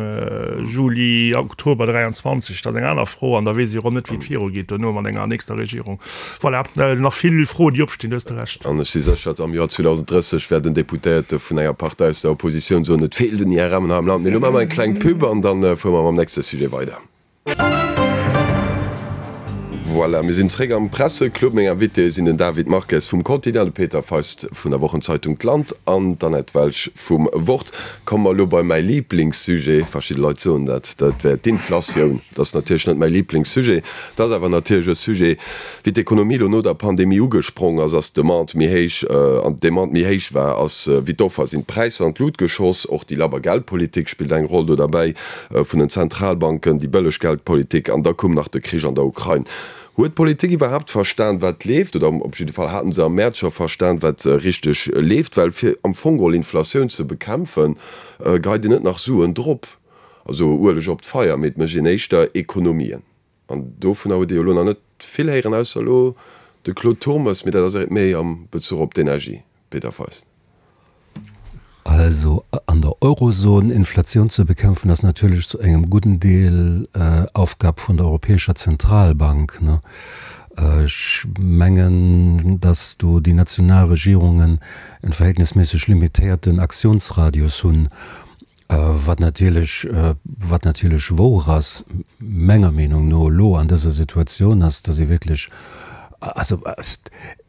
Juli, Oktober 23? Dat ass eng aner Fro an da weess ee jo erëm net, wéi et virugeet duerno mat enger nächster Regierung. Voilà, nach vill Froen, déi opstinn, du hues de Recht. An ech si sécher, am Joer 2030 wäert en Deputéierte vun enger Partei aus der Oppositioun soen, et feelt un IRMen hei am Land. Mee elo maache mer eng kleng Pub an da fuere mer mam nächste Sujet weider. Voilà, mir sinn zréck am Presseclub. Meng Invitéë sinn den David Marques vum Quotidien, de Peter Feist vun der Wochenzeitung D'Land an d'Annette Welsch vum Wort. Komme mer elo bei mäi Liblingssujet, verschidde Leit soen dat, dat wär d'Inflatioun. Dat ass natierlech net mäi Liblingssujet, dat ass awer natierlech e Sujet, wéi d'Ekonomie elo no der Pandemie ugesprong ass, ass d'Demande méi héich, an d'Demande méi héich war, ass wéi d'Offer, sinn d'Präisser an d'Lut geschoss. Och déi labber Geldpolitik spillt eng Roll do derbäi. vun den Zentralbanken, déi bëlleg Geldpolitik an da koum nach de Krich an der Ukrain. Huet d'Politik iwwerhaapt verstan, wat leeft? Oder op jidde Fall haten se am Mäerz scho verstan, wat richteg leeft? Well fir am Fong geholl Inflatioun ze bekämpfen, geheit een net nach Suen drop, also Ueleg op d'Feier, mee et mécht een éischter Ekonomien. An dovunner huet ee jo elo nach net vill héieren, ausser elo de Claude Turmes, mee dat ass méi am Bezuch op d'Energie. Peter Feist. Also an der Eurozon Inflatioun ze bekämpfen, ass natierlech zu engem gudden Deel Aufgab vun der Europäescher Zentralbank. Ech mengen, datt do déi national Regierungen en verhältnisméisseg limitéierten Aktionsradius hunn. Wat natierlech, wat natierlech wouer ass, menger Meenung no elo an dëser Situatioun, ass, datt ee wierklech, also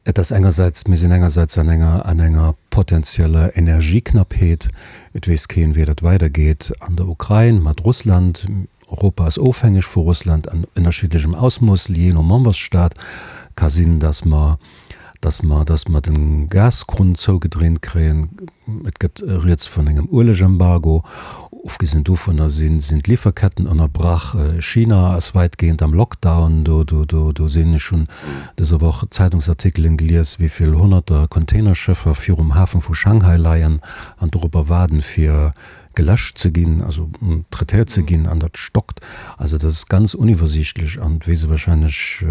et ass engersäits, mir sinn engersäits an enger, an enger potenzieller Energieknappheet, et weess keen, wéi dat weidergeet an der Ukrain mat Russland, Europa ass ofhängeg vu Russland an ënnerschiddlechem Ausmooss, jee no Membersstat. Ka sinn, datt mer, datt mer, datt mer de Gaskrunn zougedréint kréien. Et gëtt rieds vun engem Uelegembargo. Ofgesinn dovunner sinn, sinn d'Liwwerketten ënnerbrach. China ass wäitgehend am Lockdown. Do, do, do, do sinn, ech hunn dëser Woch Zeitungsartikelen gelies, wéi vill honnerter Containerschëffer virum Hafen vu Shanghai leien an dorobber waarden, fir geläscht ze ginn, also traitéiert ze ginn, an dat stockt. Also dat ass ganz uniwwersiichtlech an et weess e wahrscheinlech,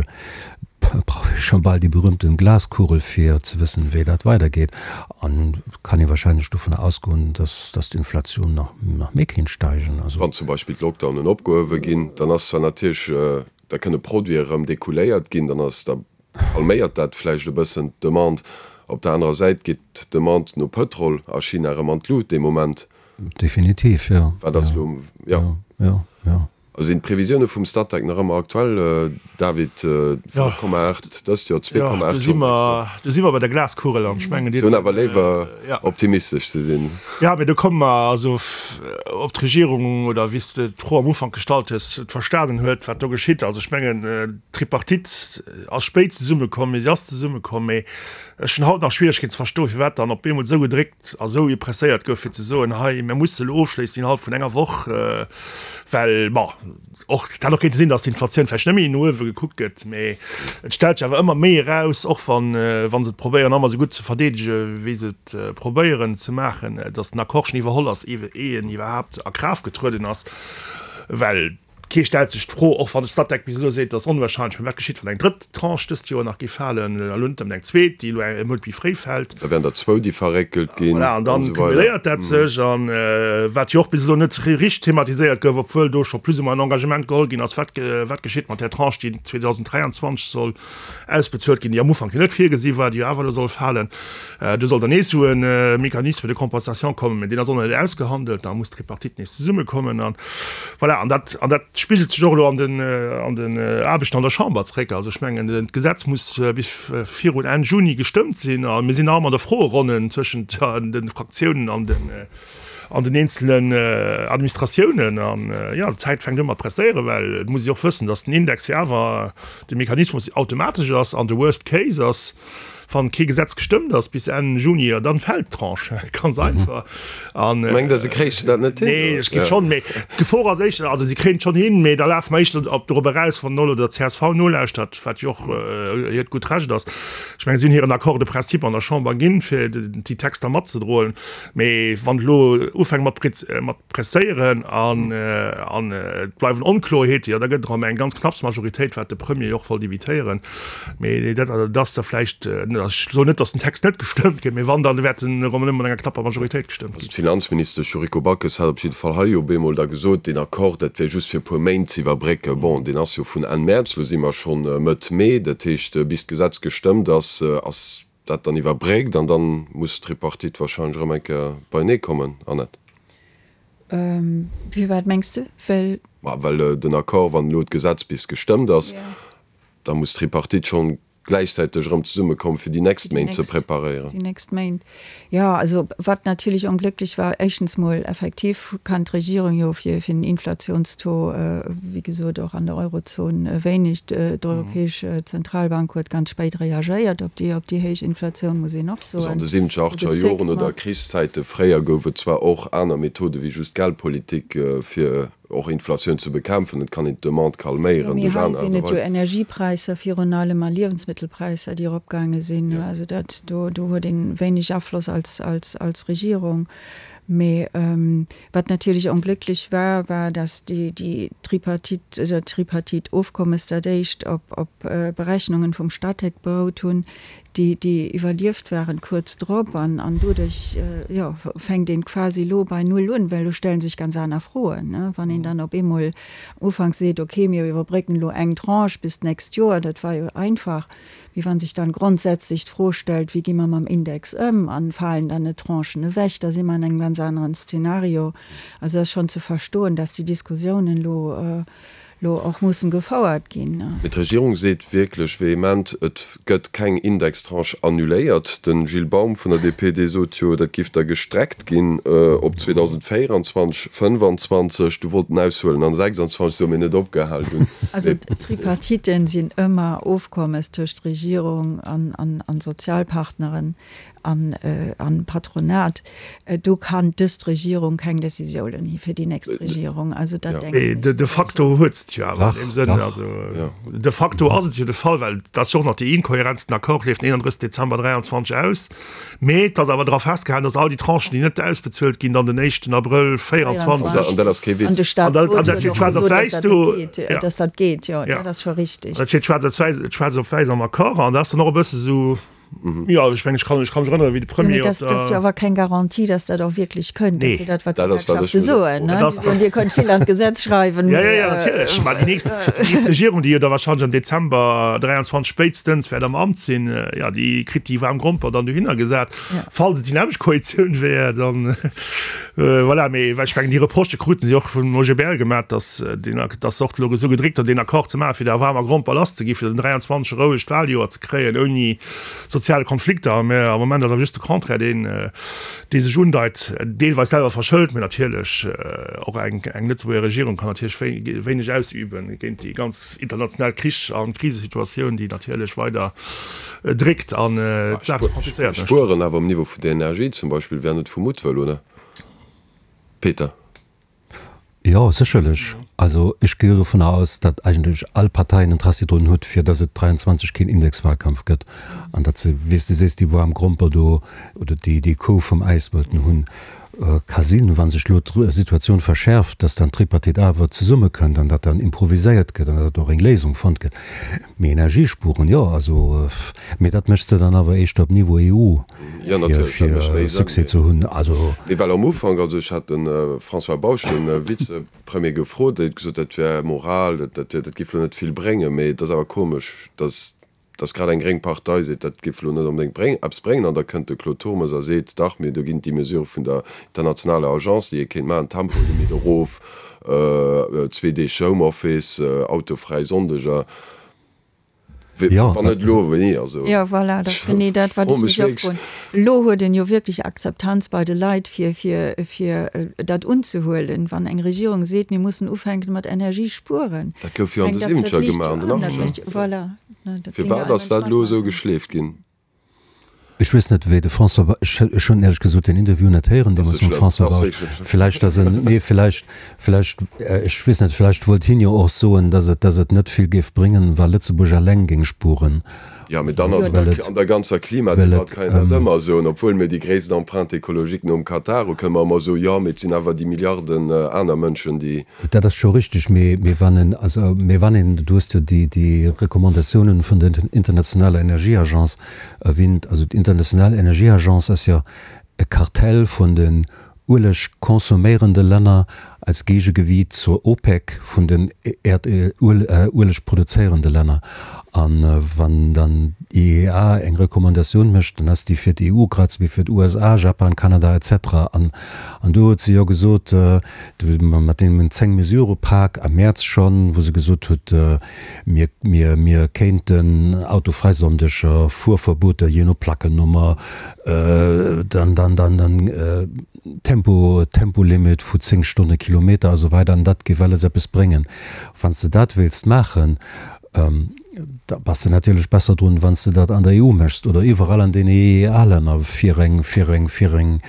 brauch ee scho bal déi berühmten Glaskugel fir ze wëssen, wéi dat weidergeet. An et kann ee wahrscheinlech dovunner ausgoen, dass dass d'Inflation nach nach méi kéint steigen. Also. Wann zum Beispill d'Lockdownen opgehuewe ginn, dann ass zwar natierlech, da kënne Produite erëm decouléiert ginn, dann ass da Calméiert dat vläicht e bëssen d'Demande. Op der anerer Säit geet d'Demande no Pëtrol a China erëm an d'Lut dee Moment. Definitiv, jo. Wat ass elo, jo. Jo, jo. Sinn d'Previsioune vum Statec nach ëmmer aktuell, David? 5,8 dëst Joer, 2,8 schonn d'nächst Joer. Do si mer bei der Glaskugel an ech mengen, Dir. Se hunn awer léiwer optimistesch ze sinn. Jo, mee do komme mer also ob d'Regierung oder wéi s de d'Fro am Ufank gestallt hues, et verstanen huet, wat do geschitt. Also ech mengen, d'Tripartite ass spéit zesummekomm, mee si ass zesummekomm. Mee ech hunn haut nach Schwieregkeeten ze verstoen, firwat dann op eemol esou gedréckt a esou presséiert gouf, fir ze soen, hei, mir musse elo ofschléissen innerhalb vun enger Woch, well, bon, Och, et hätt och kéinte sinn, datt d'Inflatioun vläicht net méi no uewe gekuckt gëtt, mee et stellt sech awer ëmmer méi eraus, och wann, wa se et probéieren ëmmer esou gutt ze verdeedege wéi se et probéieren ze maachen, datt den Accord schonn iwwerholl ass, iwwe ee en iwwerhaapt a Kraaft getrueden ass. Well kee stellt sech d'Fro, och wann de Statec bis elo seet, et ass onwahrscheinlech, mä wat geschitt, wann eng drëtt Tranche dëst Joer nach géif falen, elo net nëmmen eng zweet, déi elo e Mount méi fréi fält. Da wären der zwou, déi verréckelt ginn. Voilà, an dann cumuléiert dat sech. An wat jo och bis elo net richteg thematiséiert gouf, obwuel do scho plus ou moins en Engagement geholl ginn ass, wat, wat geschitt mat där Tranche, déi 2023 soll ausbezuelt ginn, déi am Ufank jo net virgesi war, déi jo awer elo soll falen. Do soll dann nees esou e Mécanisme de compensation kommen, mä deen ass och nach net ausgehandelt. Da muss d'Tripartite nees zesummekommen. An voilà, an dat, an dat spigelt sech och elo an den, an den Aarbechten an der Chamber zréck. Also ech mengen, d'Gesetz muss bis virun Enn Juni gestëmmt sinn a mir sinn nach ëmmer an der Froeronnen tëschent de Fraktiounen an den an den eenzelen Administratiounen. An jo, d'Zäit fänkt u mat presséieren, well et muss ee och wëssen, datt den Index jo awer de Mechanismus automatesch ass an de Worst Case ass, wann kee Gesetz gestëmmt ass bis Enn Juni, jo dann fält d'Tranche, ganz einfach. An Mengt Der, se kréichen dat net hin? Nee, ech géif schonn, mee d'Gefor ass éischter, also si kréien et schonn hin, mee da lafe mer éischter op dorop eraus, wann elo der csv nolauschtert, wat jo och hiert gutt Recht ass. Ech mengen, si hunn hiren Accord de principe an der Chamber ginn, fir déi Texter matzedroen. Mee wann et elo ufänkt mat mat presséieren an an et bleiwen Onkloerheete, jo da gëtt et erëm eng ganz knapps Majoritéit, wat de Premier jo och wollt evitéieren. Mee dat ass da vläicht, ech soen net, datt den Text net gestëmmt gëtt, mee wann, da wäert en erëm nëmme mat enger knapper Majoritéit gestëmmt ginn. Also d'Finanzministesch Yuriko Backes hat op jidde Fall hei op eemol da gesot, deen Accord, dat wär just fir e puer Méint ze iwwerbrécken. Bon, deen ass jo vun Enn Mäerz, elo si mer schonn Mëtt Mee, dat heescht, bis d'Gesetz gestëmmt ass, ass dat dann iwwerbréckt an dann muss d'Tripartite wahrscheinlech erëm eng Kéier beienee kommen, Annette. Firwat mengs de? Well. Ma well den Accord, wann elo d'Gesetz bis gestëmmt ass. Da muss d'Tripartite schonn gläichzäiteg erëm zesummekommen, fir déi nächst Méint ze preparéieren. Déi nächst Méint, jo. Also wat natierlech onglécklech war, éischtens mol effektiv kann d'Regierung jo fir den Inflationstaux, wéi gesot och an der Eurozon, wéineg. D'Europäesch Zentralbank huet ganz spéit reagéiert op déi op déi héich Inflatioun, muss een och soen. Also an de siwwenzeger, achteger Joren oder Krichszäite fréier gouf et zwar och aner Methode wéi just Geldpolitik, fir och Inflatioun ze bekämpfen. Et kann een d'Demande calméieren duerch aner Aart a Weisen. Mee hei sinn et jo Energiepräisser virun allem a Liewensmëttelpräisser, déi eropgaange sinn. Also dat, do, do huet ee wéineg Afloss als, als, als Regierung. Mee wat natierlech onglécklech war, war, datt déi, déi Tripartite, dat Tripartite-Ofkommes, dat éischt op, op Berechnungen vum Statec berout hunn, déi déi iwwerlieft waren kuerz drop an an doduerch jo fänkt een quasi elo bei Null un, well elo stellen sech ganz aner Froen, ne, wann een dann op eemol am Ufank seet, okay mir iwwerbrécken elo eng Tranche bis d'nächst Joer, dat war jo einfach, mee wann sech dann grondsätzlech d'Fro stellt, wéi gi mer mam Index ëm an falen dann net Tranchen ewech, da si mer an engem ganz aneren Szenario. Also ass schonn ze verstoen, dass déi Diskussiounen elo lo och mussen gefouert ginn. Mee d'Regierung seet wierklech vehement, et gëtt keng Indextranche annuléiert. De Gilles Baum vun der DP, dee sot jo, dat giff da gestreckt ginn op 2024, 25. Du wollt en aushuelen an 26, sou, mee net opgehal dunn. Also d'Tripartiten sinn ëmmer Ofkommes tëscht Regierung an Sozialpartneren. An Patronat, do kann dëst Regierung keng Décisiounen hi fir déi nächst Regierung. Also dat denken ech. De facto huet se et jo awer an deem Sënn. Also de facto ass et jo de Fall, well et ass jo och nach déi Inkohärenz, den Accord leeft den 31 Dezember 23 aus, mee et ass awer dra festgehalen, datt all déi Tranchen, déi net ausbezuelt ginn, dann den éischten Abrëll 24. An dat ass kee Witz. An de Staatsrot huet och gesot, datt dat net geet, datt dat geet, jo, dat ass scho richtig. Dat steet schwaarz op wäiss am Accord an dat ass dann och e bësse sou, Jo, ech mengen, ech kann, ech kann mech erënneren, wéi de Premier op der. Dat ass jo awer keng Garantie, dass dat och wierklech kënnt. Dat ass jo dat, wat d'Gewerkschafte soen, ne? Déi soen, Dir kënnt vill an d'Gesetz schreiwen, mee. Jo, jo, jo, natierlech. Mä déi nächst, déi nächst Regierung, déi jo da wahrscheinlech am Dezember 23 spéitstens wäert am Amt sinn, jo, déi kritt déi waarm Gromper dann dohinner gesat. Falls et déi nämmlecht Koalitioun wär, dann, voilà. Mee well ech mengen, déi Reprochë krute si och vum OGBL gemaach, dass deen, dass se och elo esou gedréckt hunn, deen Accord ze maachen, fir der waarmer Gromper lasszeginn, fir den 23 e rouegt Wahljoer ze kréien ouni soziale Konflikter. Mä am Moment ass awer just de Contraire deen, dee sech undeit, deelweis selwer verschëlt, mä natierlech och eng eng Lëtzebuerger Regierung kann natierlech wéineg ausüben géint déi ganz international Krich a Krisesituatioun, déi natierlech weider dréckt an d'Saach ze komplizéiert mécht. Spueren awer um Niveau vun der Energie zum Beispill wär net vu Muttwëll, oder Peter? Jo, sécherlech. Also ech gi jo dovunner aus, datt eigentlech all Partei en Interessi drun huet, fir datt et 23 keen Indexwahlkampf gëtt an datt se, wéi s de sees, déi waarm Gromper do oder déi déi Kou vum Äis wëllten hunn. Ka sinn, wa sech elo d'Situatioun verschäerft, datt dann d'Tripartite awer zesummekënnt an datt dann improviséiert gëtt an datt och eng Léisung fonnt gëtt. Mee Energiespuren, jo, also, mee dat mécht se dann awer éischter op Niveau EU, fir Succès ze hunn. Also. Mee well am Ufank, also ech hat de François Bausch, de Vizepremier, gefrot, dee huet gesot, dat wär Moral, dat wär, dat géif elo net vill bréngen. Mee et ass awer komesch, datt, datt grad eng gréng Partei seet, dat géif elo net onbedéngt bréng, eppes bréngen. An da kënnt de Claude Turmes a seet, dach, mee do ginn et déi Mesurë vun der internationaler Agence, déi ee kéint maachen, Tempolimit erof, zwee Deeg Homeoffice, autofräi Sonndeger. Wann net elo, wéini? Also, Jo, voilà, dat ass genee dat, wat ech mech och froen. Elo huet een jo wierklech Akzeptanz bei de Leit, fir, fir, fir dat unzehuelen, wann eng Regierung seet, mir mussen ufänken mat Energie spueren. Dat gouf jo an de Siwwenzeger gemaach, an den Achtzeger. Voilà. Firwat ass dat elo esou geschleeft ginn? Ech weess net, wéi de François Bausch, ech, ech hunn éierlech gesot deen Interview net héieren deemools mam François Bausch. Villäicht ass en, nee, villäicht, villäicht, ech weess net, villäicht wollt hien jo och soen, datt et, datt et net vill géif bréngen, wa Lëtzebuerg eleng géing spueren. Jo, mee dann ass et an der ganzer Klimadebatt kann een dat ëmmer soen, obwuel mir déi gréisst Empreinte écologique nom Katar hu, kënne mer ëmmer soen, jo, mee et sinn awer déi Milliarden aner Mënschen, déi. Dat ass scho richtig, mee, mee wann en, also, mee wann een, du hues jo déi, déi Recommandatiounen vun der Internationaler Energieagence erwähnt, also d'International Energieagence ass jo e Kartell vun den Ueleg consomméierende Länner. Als Geegegewiit zur OPEC vun den Ueleg produzéierende Länner. A wann dann d'IEA eng Recommandatioun mécht, dann ass déi fir d'EU grad esou wéi fir d'USA, Japan, Kanada et cetera. An do huet se jo gesot, mat deem 10-Mesure-Pak am Mäerz schonn, wou se gesot huet, mir, mir, mir kéinten autofräi Sonndeger, Fuerverbueter jee no Plackennummer, dann, dann, dann, dann, Tempo, Tempolimit vu 10 Stonne Kilometer a sou weider an dat géif alles eppes bréngen. Wann s de dat wéilst maachen, da bass de natierlech besser drun, wann s de dat an der EU méchs oder iwwerall an den EEA-Länner, fir eng, fir eng, fir eng,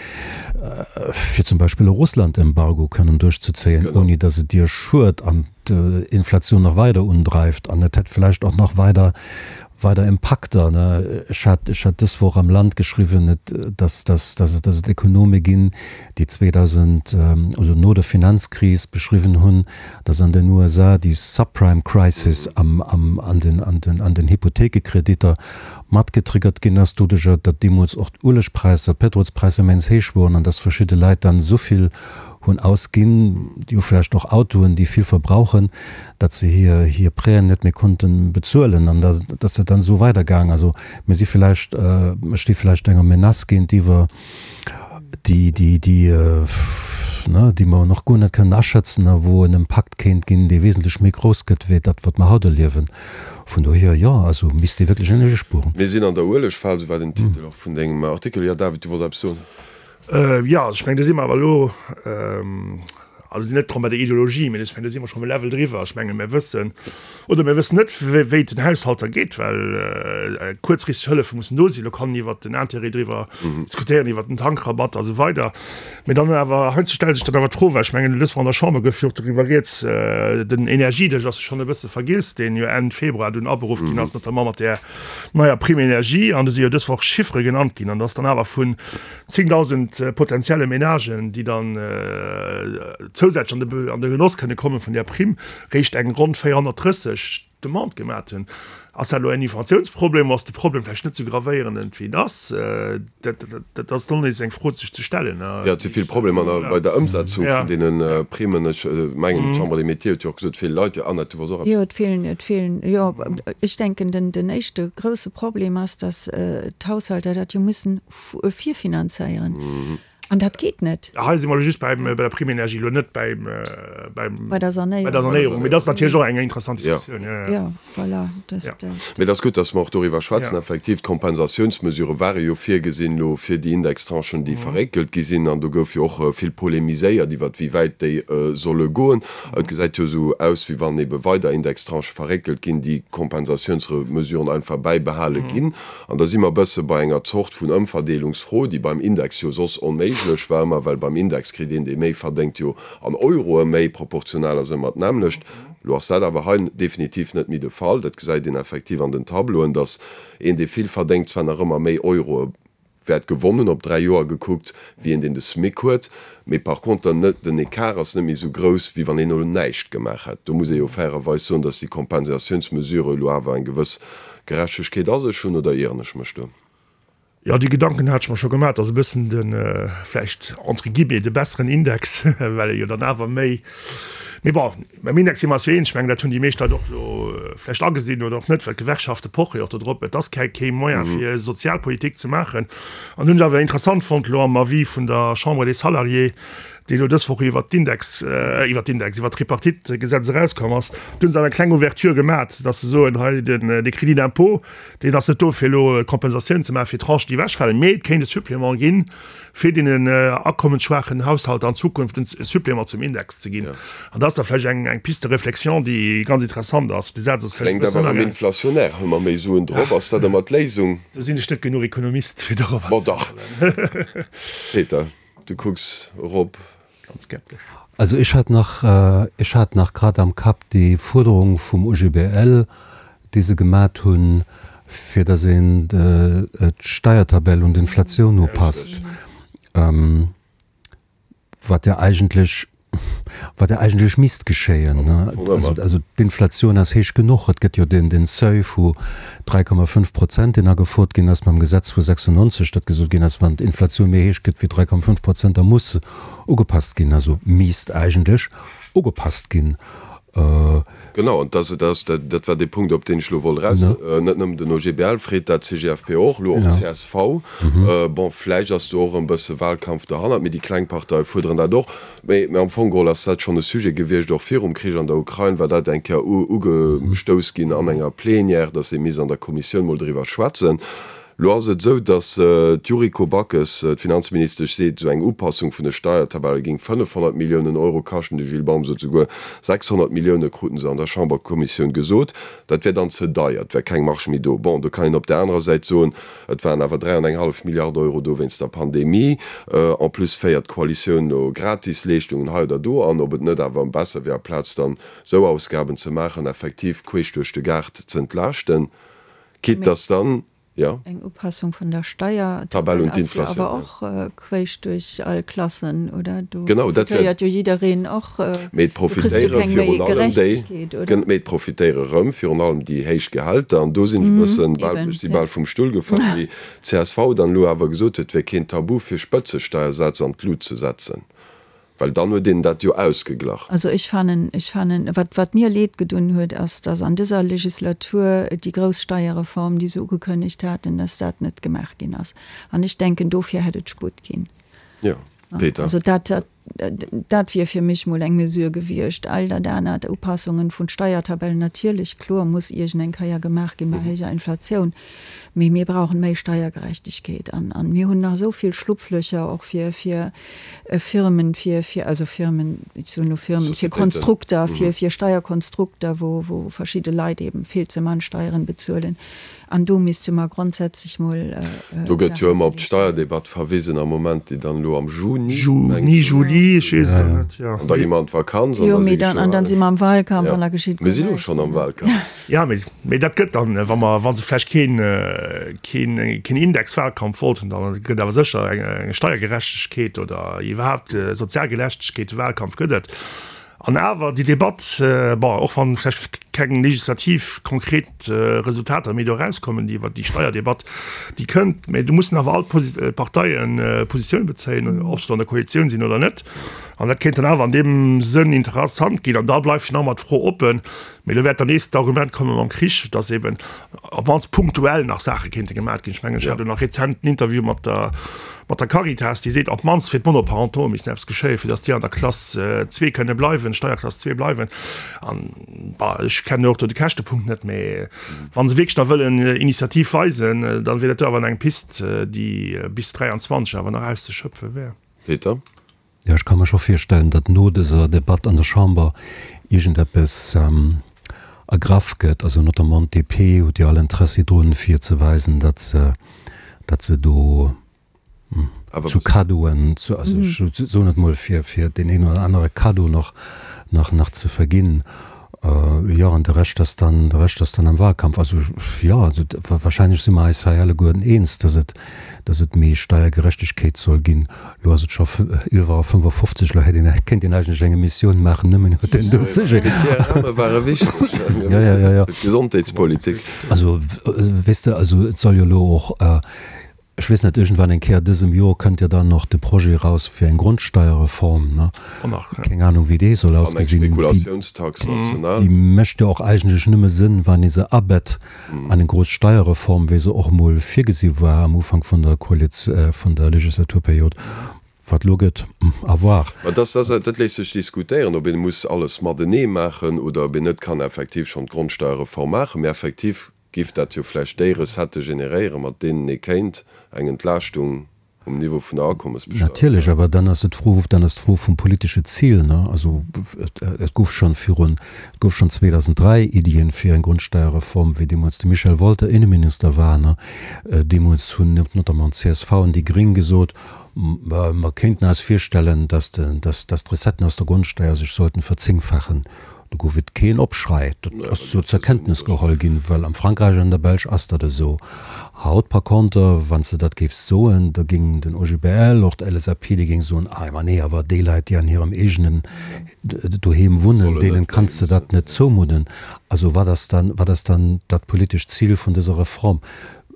fir zum Beispill e Russland-Embargo kënnen duerchzezéien, ouni datt et dir schued an d'Inflatioun nach weider undreift an et hätt vläicht och nach weider weider Impakter. Ech hat, ech hat dës Woch am Land geschriwwen, dass, dass, dass et, dass et Ekonome ginn, déi 2000, also no der Finanzkris beschriwwen hunn, dass an den USA déi Subprime Crisis am, am, an den, an den, an den Hypothekekreditter matgetriggert ginn ass, doduercher, datt deemools och d'Uelegpräisser, d'Pétrolspräisser immens héich woren an dass verschidde Leit dann esou vill hunn ausginn, déi hu vläicht och Autoen, déi vill verbrauchen, datt se hir hir Prêten net méi konnte bezuelen an da ass dat dann esou weidergaang. Also mir si vläicht, mir sti vläicht enger Menace géintiwwer, déi déi déi ne déi mer nach guer net kënnen aschätzen a wou en Impakt kéint ginn, dee wesentlech méi grouss gëtt wéi dat, wat mer haut erliewen. Vun dohier, jo, also misst ee wierklech Energie spueren. Mir sinn an der Uelegfal, esou war den Titel och vun dengem Artikel. Jo, David, du wollts eppes soen? Jo, also ech mengen, do si mer awer elo, also net drëm bei der Ideologie, mee ech mengen, do si mer schonn e Level driwwer. Ech menge mir wëssen, oder mir wëssen net, wéi et den Haushalter geet, well kuerzfristeg Hëllefe mussen do sinn. Elo kann een iwwert den Intérêt driwwer diskutéieren, iwwert den Tankrabatt a sou weider. Mee dann awer, heiansdo stellt sech dann awer d'Fro, well ech mengen, dës Woch an der Chamber gouf jo och doriwwer rieds, den Energiedësch ass jo schonn e bësse vergiess, deen jo Enn Februar dunn aberuff ginn ass, notamment mat där neier Prime énergie. An do si jo dës Woch Chiffere genannt ginn, an dass dann awer vun 10.000 potenzielle Menagen, déi dann zousätzlech an de Genoss kënne komme vun där Primm, réischt eng ronn 430 Demandë gemat hunn. Ass dat elo en Informatiounsproblem oder ass de Problem vläicht net esou gravéierend, wéi en ass? Dat ass dann nees eng Fro sech ze stellen. Jo, et si vill Problemer bei der Ëmsetzung vun deene Primmen. Ech mengen, d'Chambre des Métiers huet jo och gesot, vill Leit, jo Annette, du wolls och eppes. Jo, et feelen, et feelen, jo, ech denken, den éischte grousse Problem ass, datt d'Haushalter dat jo mussen virfinanzéieren. An dat geet net. Hei si mer elo just beim, bei der Prime énergie, elo net beim, beim, Bei der Sanéierung. bei der Sanéierung. Mee dat ass natierlech och eng interessant Diskussioun. Jo, jo. Jo, voilà, dat, dat. Mee et ass gutt, dass mer och doriwwer schwätzen. Effektiv, d'Kompensatiounsmesurë ware jo virgesinn elo fir déi Indextranchen, déi verréckelt gi sinn. An do gouf jo och vill polemiséiert iwwert, wéi wäit déi solle goen. Et gesäit jo esou aus, wéi wann ebe weider Indextranchë verréckelt ginn, déi Kompensatiounsmesuren einfach bäibehale ginn. An da si mer e bësse bei enger Zort vun Ëmverdeelungsfro, déi beim Index jo soss onméiglech war ëmmer, well beim Index kritt een, dee méi verdéngt, jo an Euroe méi, proportional ass ëmmer d'nämmlecht. Elo ass dat awer hei definitiv net méi de Fall. Dat gesäit een effektiv an den Tableauen, datt een, dee vill verdéngt, zwar nach ëmmer méi Euroe wäert gewonnen hunn, op 3 Joer gekuckt, wéi een, deen de SMIC huet. Mee par conter net, den Ecart ass net méi esou grouss, wéi wann een elo näischt gemaach hätt. Do muss ee jo fairerweis soen, datt déi Kompensatiounsmesure elo awer eng gewëss Gerechtegkeet a sech hunn, oder ieren ech mech do? Jo, déi Gedanken hat ech mer scho gemaach. Et ass e bëssen de, vläicht entre guillemets, de besseren Index, well e jo dann awer méi, mee bon, beim Index si mer eis jo eens. Ech mengen, dat hunn déi meescht Leit och elo vläicht agesinn oder och net, well d'Gewerkschafte poche jo och do drop. Et ass kei kee Moyen, fir Sozialpolitik ze maachen. An hunn ech awer interessant fonnt elo am Avis vun der Chambre des Salariés, dee elo dës Woch iwwert d'Index, iwwert d'Index, iwwert d'Tripartite-Gesetz erauskomm ass, do hunn se awer eng kleng Ouverture gemat, dass se soen, hei den, dee Crédit d'impôt, deen ass net do fir elo Kompensatioun ze maachen fir Tranchen, déi ewechfalen, mee et kéint e Supplément ginn, fir deenen akommensschwaachen Haushalter an Zukunft en Supplément zum Index ze ginn. An dat ass da vläicht eng, eng Piste de réflexion, déi ganz interessant ass. De Saz ass vläicht e Kléngt bëssen awer erëm inflationär. Hu mer méi Suen drop? Ass dat ëmmer d'Léisung? Do sinn ech net genuch Ekonomist, fir dorobber ze. Bon, dach. Peter, du kucks erop. Ganz skeptesch. Also ech hat nach, ech hat nach grad am Kapp déi Fuerderung vum OGBL, déi se gemat hunn, fir datt een d'Steiertabell un d'Inflatioun upasst, wat jo eigentlech. Wat ja eigentlech misst geschéien. Also d'Inflatioun ass héich genuch. Et gëtt jo den Seuil vu 3,5 Prozent, deen agefouert ginn ass mam Gesetz vu 96, datt gesot ginn ass, wann d'Inflatioun méi héich gëtt wéi 3,5 Prozent, da muss se ugepasst ginn. Also misst eigentlech ugepasst ginn. Genau, an dat ass, dat war dee Punkt, op deen ech elo wollt eraus. Net nëmmen den OGBL freet dat, d'CGFP och, elo och d'CSV. Bon, vläicht ass do och e bësse Wahlkampf derhannert, mee déi kleng Parteie fuerderen dat och. Mee am Fong geholl ass dat schonn e Sujet gewiescht, och virum Krich an der Ukrain war dat eng Kéier ugestouss ginn an enger Plenière, datt ee misst an der Kommissioun mol driwwer schwätzen. Lo ass et esou, datt d'Yuriko Backes, d'Finanzministesch, seet, esou eng Upassung vun de Steiertabelle géing 500 Milliounen Euro kaschten. De Gilles Baum sot souguer 600 Millioune kruten se an der Chamberkommissioun gesot. Dat wär dann ze deier, et wär keng Marge méi do. Bon, do kann een op där anerer Säit soen, et waren awer 3 an eng hallef Milliarde Euro do wéinst der Pandemie. En plus féiert d'Koalitioun elo Gratisleeschtungen hei oder do an. Ob et net awer besser wier, aplaz dann esou Ausgaben ze maachen, effektiv queesch duerch de Gaart z'entlaaschten. Quitte dass dann, jo. Eng Upassung vun der Steiertabell ass jo awer och quéisch duerch all Klassen, oder? Do profitéiert jo jiddereen och. Mee et profitéiere virun allem déi, mee et profitéiere rëm virun allem déi héich Gehälter. An do sinn ech e bëssen bal, ech si bal vum Stull gefall, wéi d'CSV dann elo awer gesot huet, et wär keen Tabu fir Spëtzesteiersätz an d'Lut ze setzen. Well dann huet een dat jo ausgeglach. Also ech fannen, ech fannen, wat, wat mir Leed gedunn huet, ass, dass an dëser Legislatur déi grouss Steierreform, déi se ugekënnegt haten, dass dat net gemaach ginn ass. An ech denken, dofir hätt et Sputt ginn. Jo, Peter. Also dat, dat, dat wier fir mech mol eng Mesure gewiescht. All dat anert, Upassungen vun Steiertabellen, natierlech, kloer, muss iergend eng Kéier gemaach ginn bei héijer Inflatioun. Mee mir brauchen méi Steiergerechtegkeet an, an mir hunn nach esou vill Schlupflöcher och fir, fir Firmen, fir, fir, also Firmen, ech soen elo Firmen, fir Konstrukter, fir, fir Steierkonstrukter, wou, wou verschidde Leit eben vill ze mann Steieren bezuelen. An do misste mer grondsätzlech mol. Do gëtt jo ëmmer op d'Steierdebatt verwisen am Moment, déi dann elo am Juni, Juni, Juli, ech weess et elo net, jo. An da gi mer an d'Vakanz an da si geschwë. An dann si mer am Wahlkampf an da geschitt guer näischt. Mir si lo schonn am Wahlkampf. Jo, mee, mee dat gëtt dann, wa mer, wa se vläicht keen, keen, keen Indexwahlkampf wollten, da gëtt awer sécher eng, eng Steiergerechtegkeet oder iwwerhaapt Sozialgerechtegkeet Wahlkampf gëtt et. An awer déi Debatt, bon, och wann vläicht keng legislativ konkret Resultater méi do erauskommen, déi iwwert déi Steierdebatt, déi kënnt, mee do mussen awer all d'Parteien Positioun bezéien, ob se do an der Koalitioun sinn oder net. An dat kéint dann awer an deem Sënn interessant ginn. An da bleift jo nach ëmmer d'Fro oppen, Mee elo wäert dann nees d'Argument komme mam Krich, datt eben op d'mannst punktuell nach Saache kéinte gemat ginn. Ech mengen, ech hat elo nach rezent en Interview mat der, mat der Caritas, déi seet, op d'mannst fir d'Monoparentauxe missten eppes geschéien, fir datt déi an der Klass zwee kënne bleiwen, Steierklass zwee bleiwen. An, bah, ech kennen och do de Käschtepunkt net, mee wa se wierklech da wëllen Initiativ weisen, da wier dat do awer eng Pist, déi bis 23 awer nach auszeschöpfe wär. Peter? Jo, ech ka mer scho virstellen, datt no dëser Debatt an der Chamber iergendeppes ergraff gëtt. Also notamment d'DP huet jo all Interessi drun, fir ze weisen, datt se, datt se do zu Kaddoen, zu, also ech soen et mol, fir, fir deen een oder anere Kaddo nach, nach, nach ze verginn. Jo, an de Rescht ass dann, de Rescht ass dann am Wahlkampf. Also, jo, also wahrscheinlech si mer eis hei alleguerten eens, dass et, dass et méi Steiergerechtegkeet soll ginn. Elo ass et scho 11 Auer 55, elo hätt een, kéint een eigentlech eng Emissioun maachen nëmmen iwwer deen do Sujet. D'IRMe ware wichteg, Jo, jo, jo, jo. D'Gesondheetspolitik. Also, weess de, also et soll jo elo och, Ech weess net, iergendwann eng Kéier dësem Jor kënnt jo dann och de Projet eraus fir eng Grondsteierreform, ne? Keng Ahnung, wéi dee soll An eng ausgesinn. Déi, Spekulatiounstax national. déi mécht jo och eigentlech nëmme Sënn, wann ee se abett an eng grouss Steierreform, wéi se och emol virgesi war am Ufank vun der Koaliz, vun der Legislaturperiod. Wat elo gëtt, à voir. Mä dass, dass, dat léisst sech diskutéieren, ob een muss alles matenee maachen oder ob een net kann effektiv schonn d'Grondsteierreform maachen. Mä effektiv Giff dat jo vläicht déi Recettë generéieren, mat deenen ee kéint eng Entlaaschtung um Niveau vun der Akommesbesteuerung Natierlech, awer dann ass et d'Fro, dann ass d'Fro vum politesche Zil, ne? Also et gouf schonn virun, et gouf schonn 2003 Iddien fir eng Grundsteierreform, wéi deemools de Michel Wolter Inneminister war, ne? Deemools hunn notamment d'CSV an déi Gréng gesot, mer kéinten eis virstellen, dass de, dass, dass d'Recetten aus der Grundsteier sech sollten verzéngfachen. Do gouf et keen Opschrei. Dat ass sou zur Kenntnis geholl ginn, well am Frankräich an der Belsch ass dat esou. Haut par contre, wann s de dat géifs soen, da géing den OGBL, och d'LSAP, déi géing soen, ah ma nee, awer déi Leit, déi an hirem eegenen Doheem wunnen, deenen kanns de dat net zoumudden. Also wat ass dann, wat ass dann dat politescht Zil vun dëser Reform?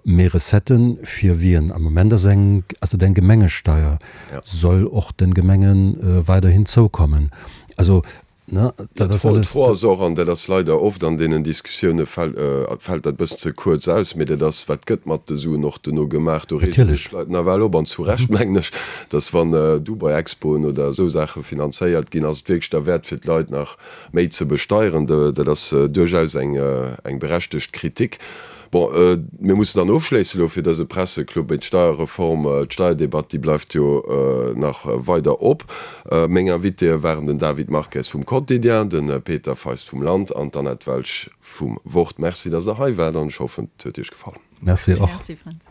Méi Recetten fir wien? Am Moment ass eng, ass et eng Gemengesteier, soll och de Gemenge weiderhin zoukommen. Also Ne, dat ass alles. D'Fro ass och, an dat ass leider oft an deenen Diskussioune fält dat e bëssen ze kuerz aus, mee dat ass, wat gëtt mat de Suen och duerno gemaach? Do reege sech d'Leit nawell op, an zu Recht mengen ech, datt wann Dubai-Expoen oder esou Saache finanzéiert ginn, ass et wierklech derwäert fir d'Leit nach méi ze besteieren? Dat ass duerchaus eng berechtegt Kritik. Bon, mir mussen dann ofschléissen elo fir dëse Presseclub. Mee d'Steierreform, d'Steierdebatt, déi bleift jo nach weider op. Meng Invitéë waren den David Marques vum Quotidien, de Peter Feist vum Land an d'Annette Welsch vum Wort. Merci, dass Der hei waart an ech hoffen, et huet Iech gefall. Merci och. Merci, Fränz.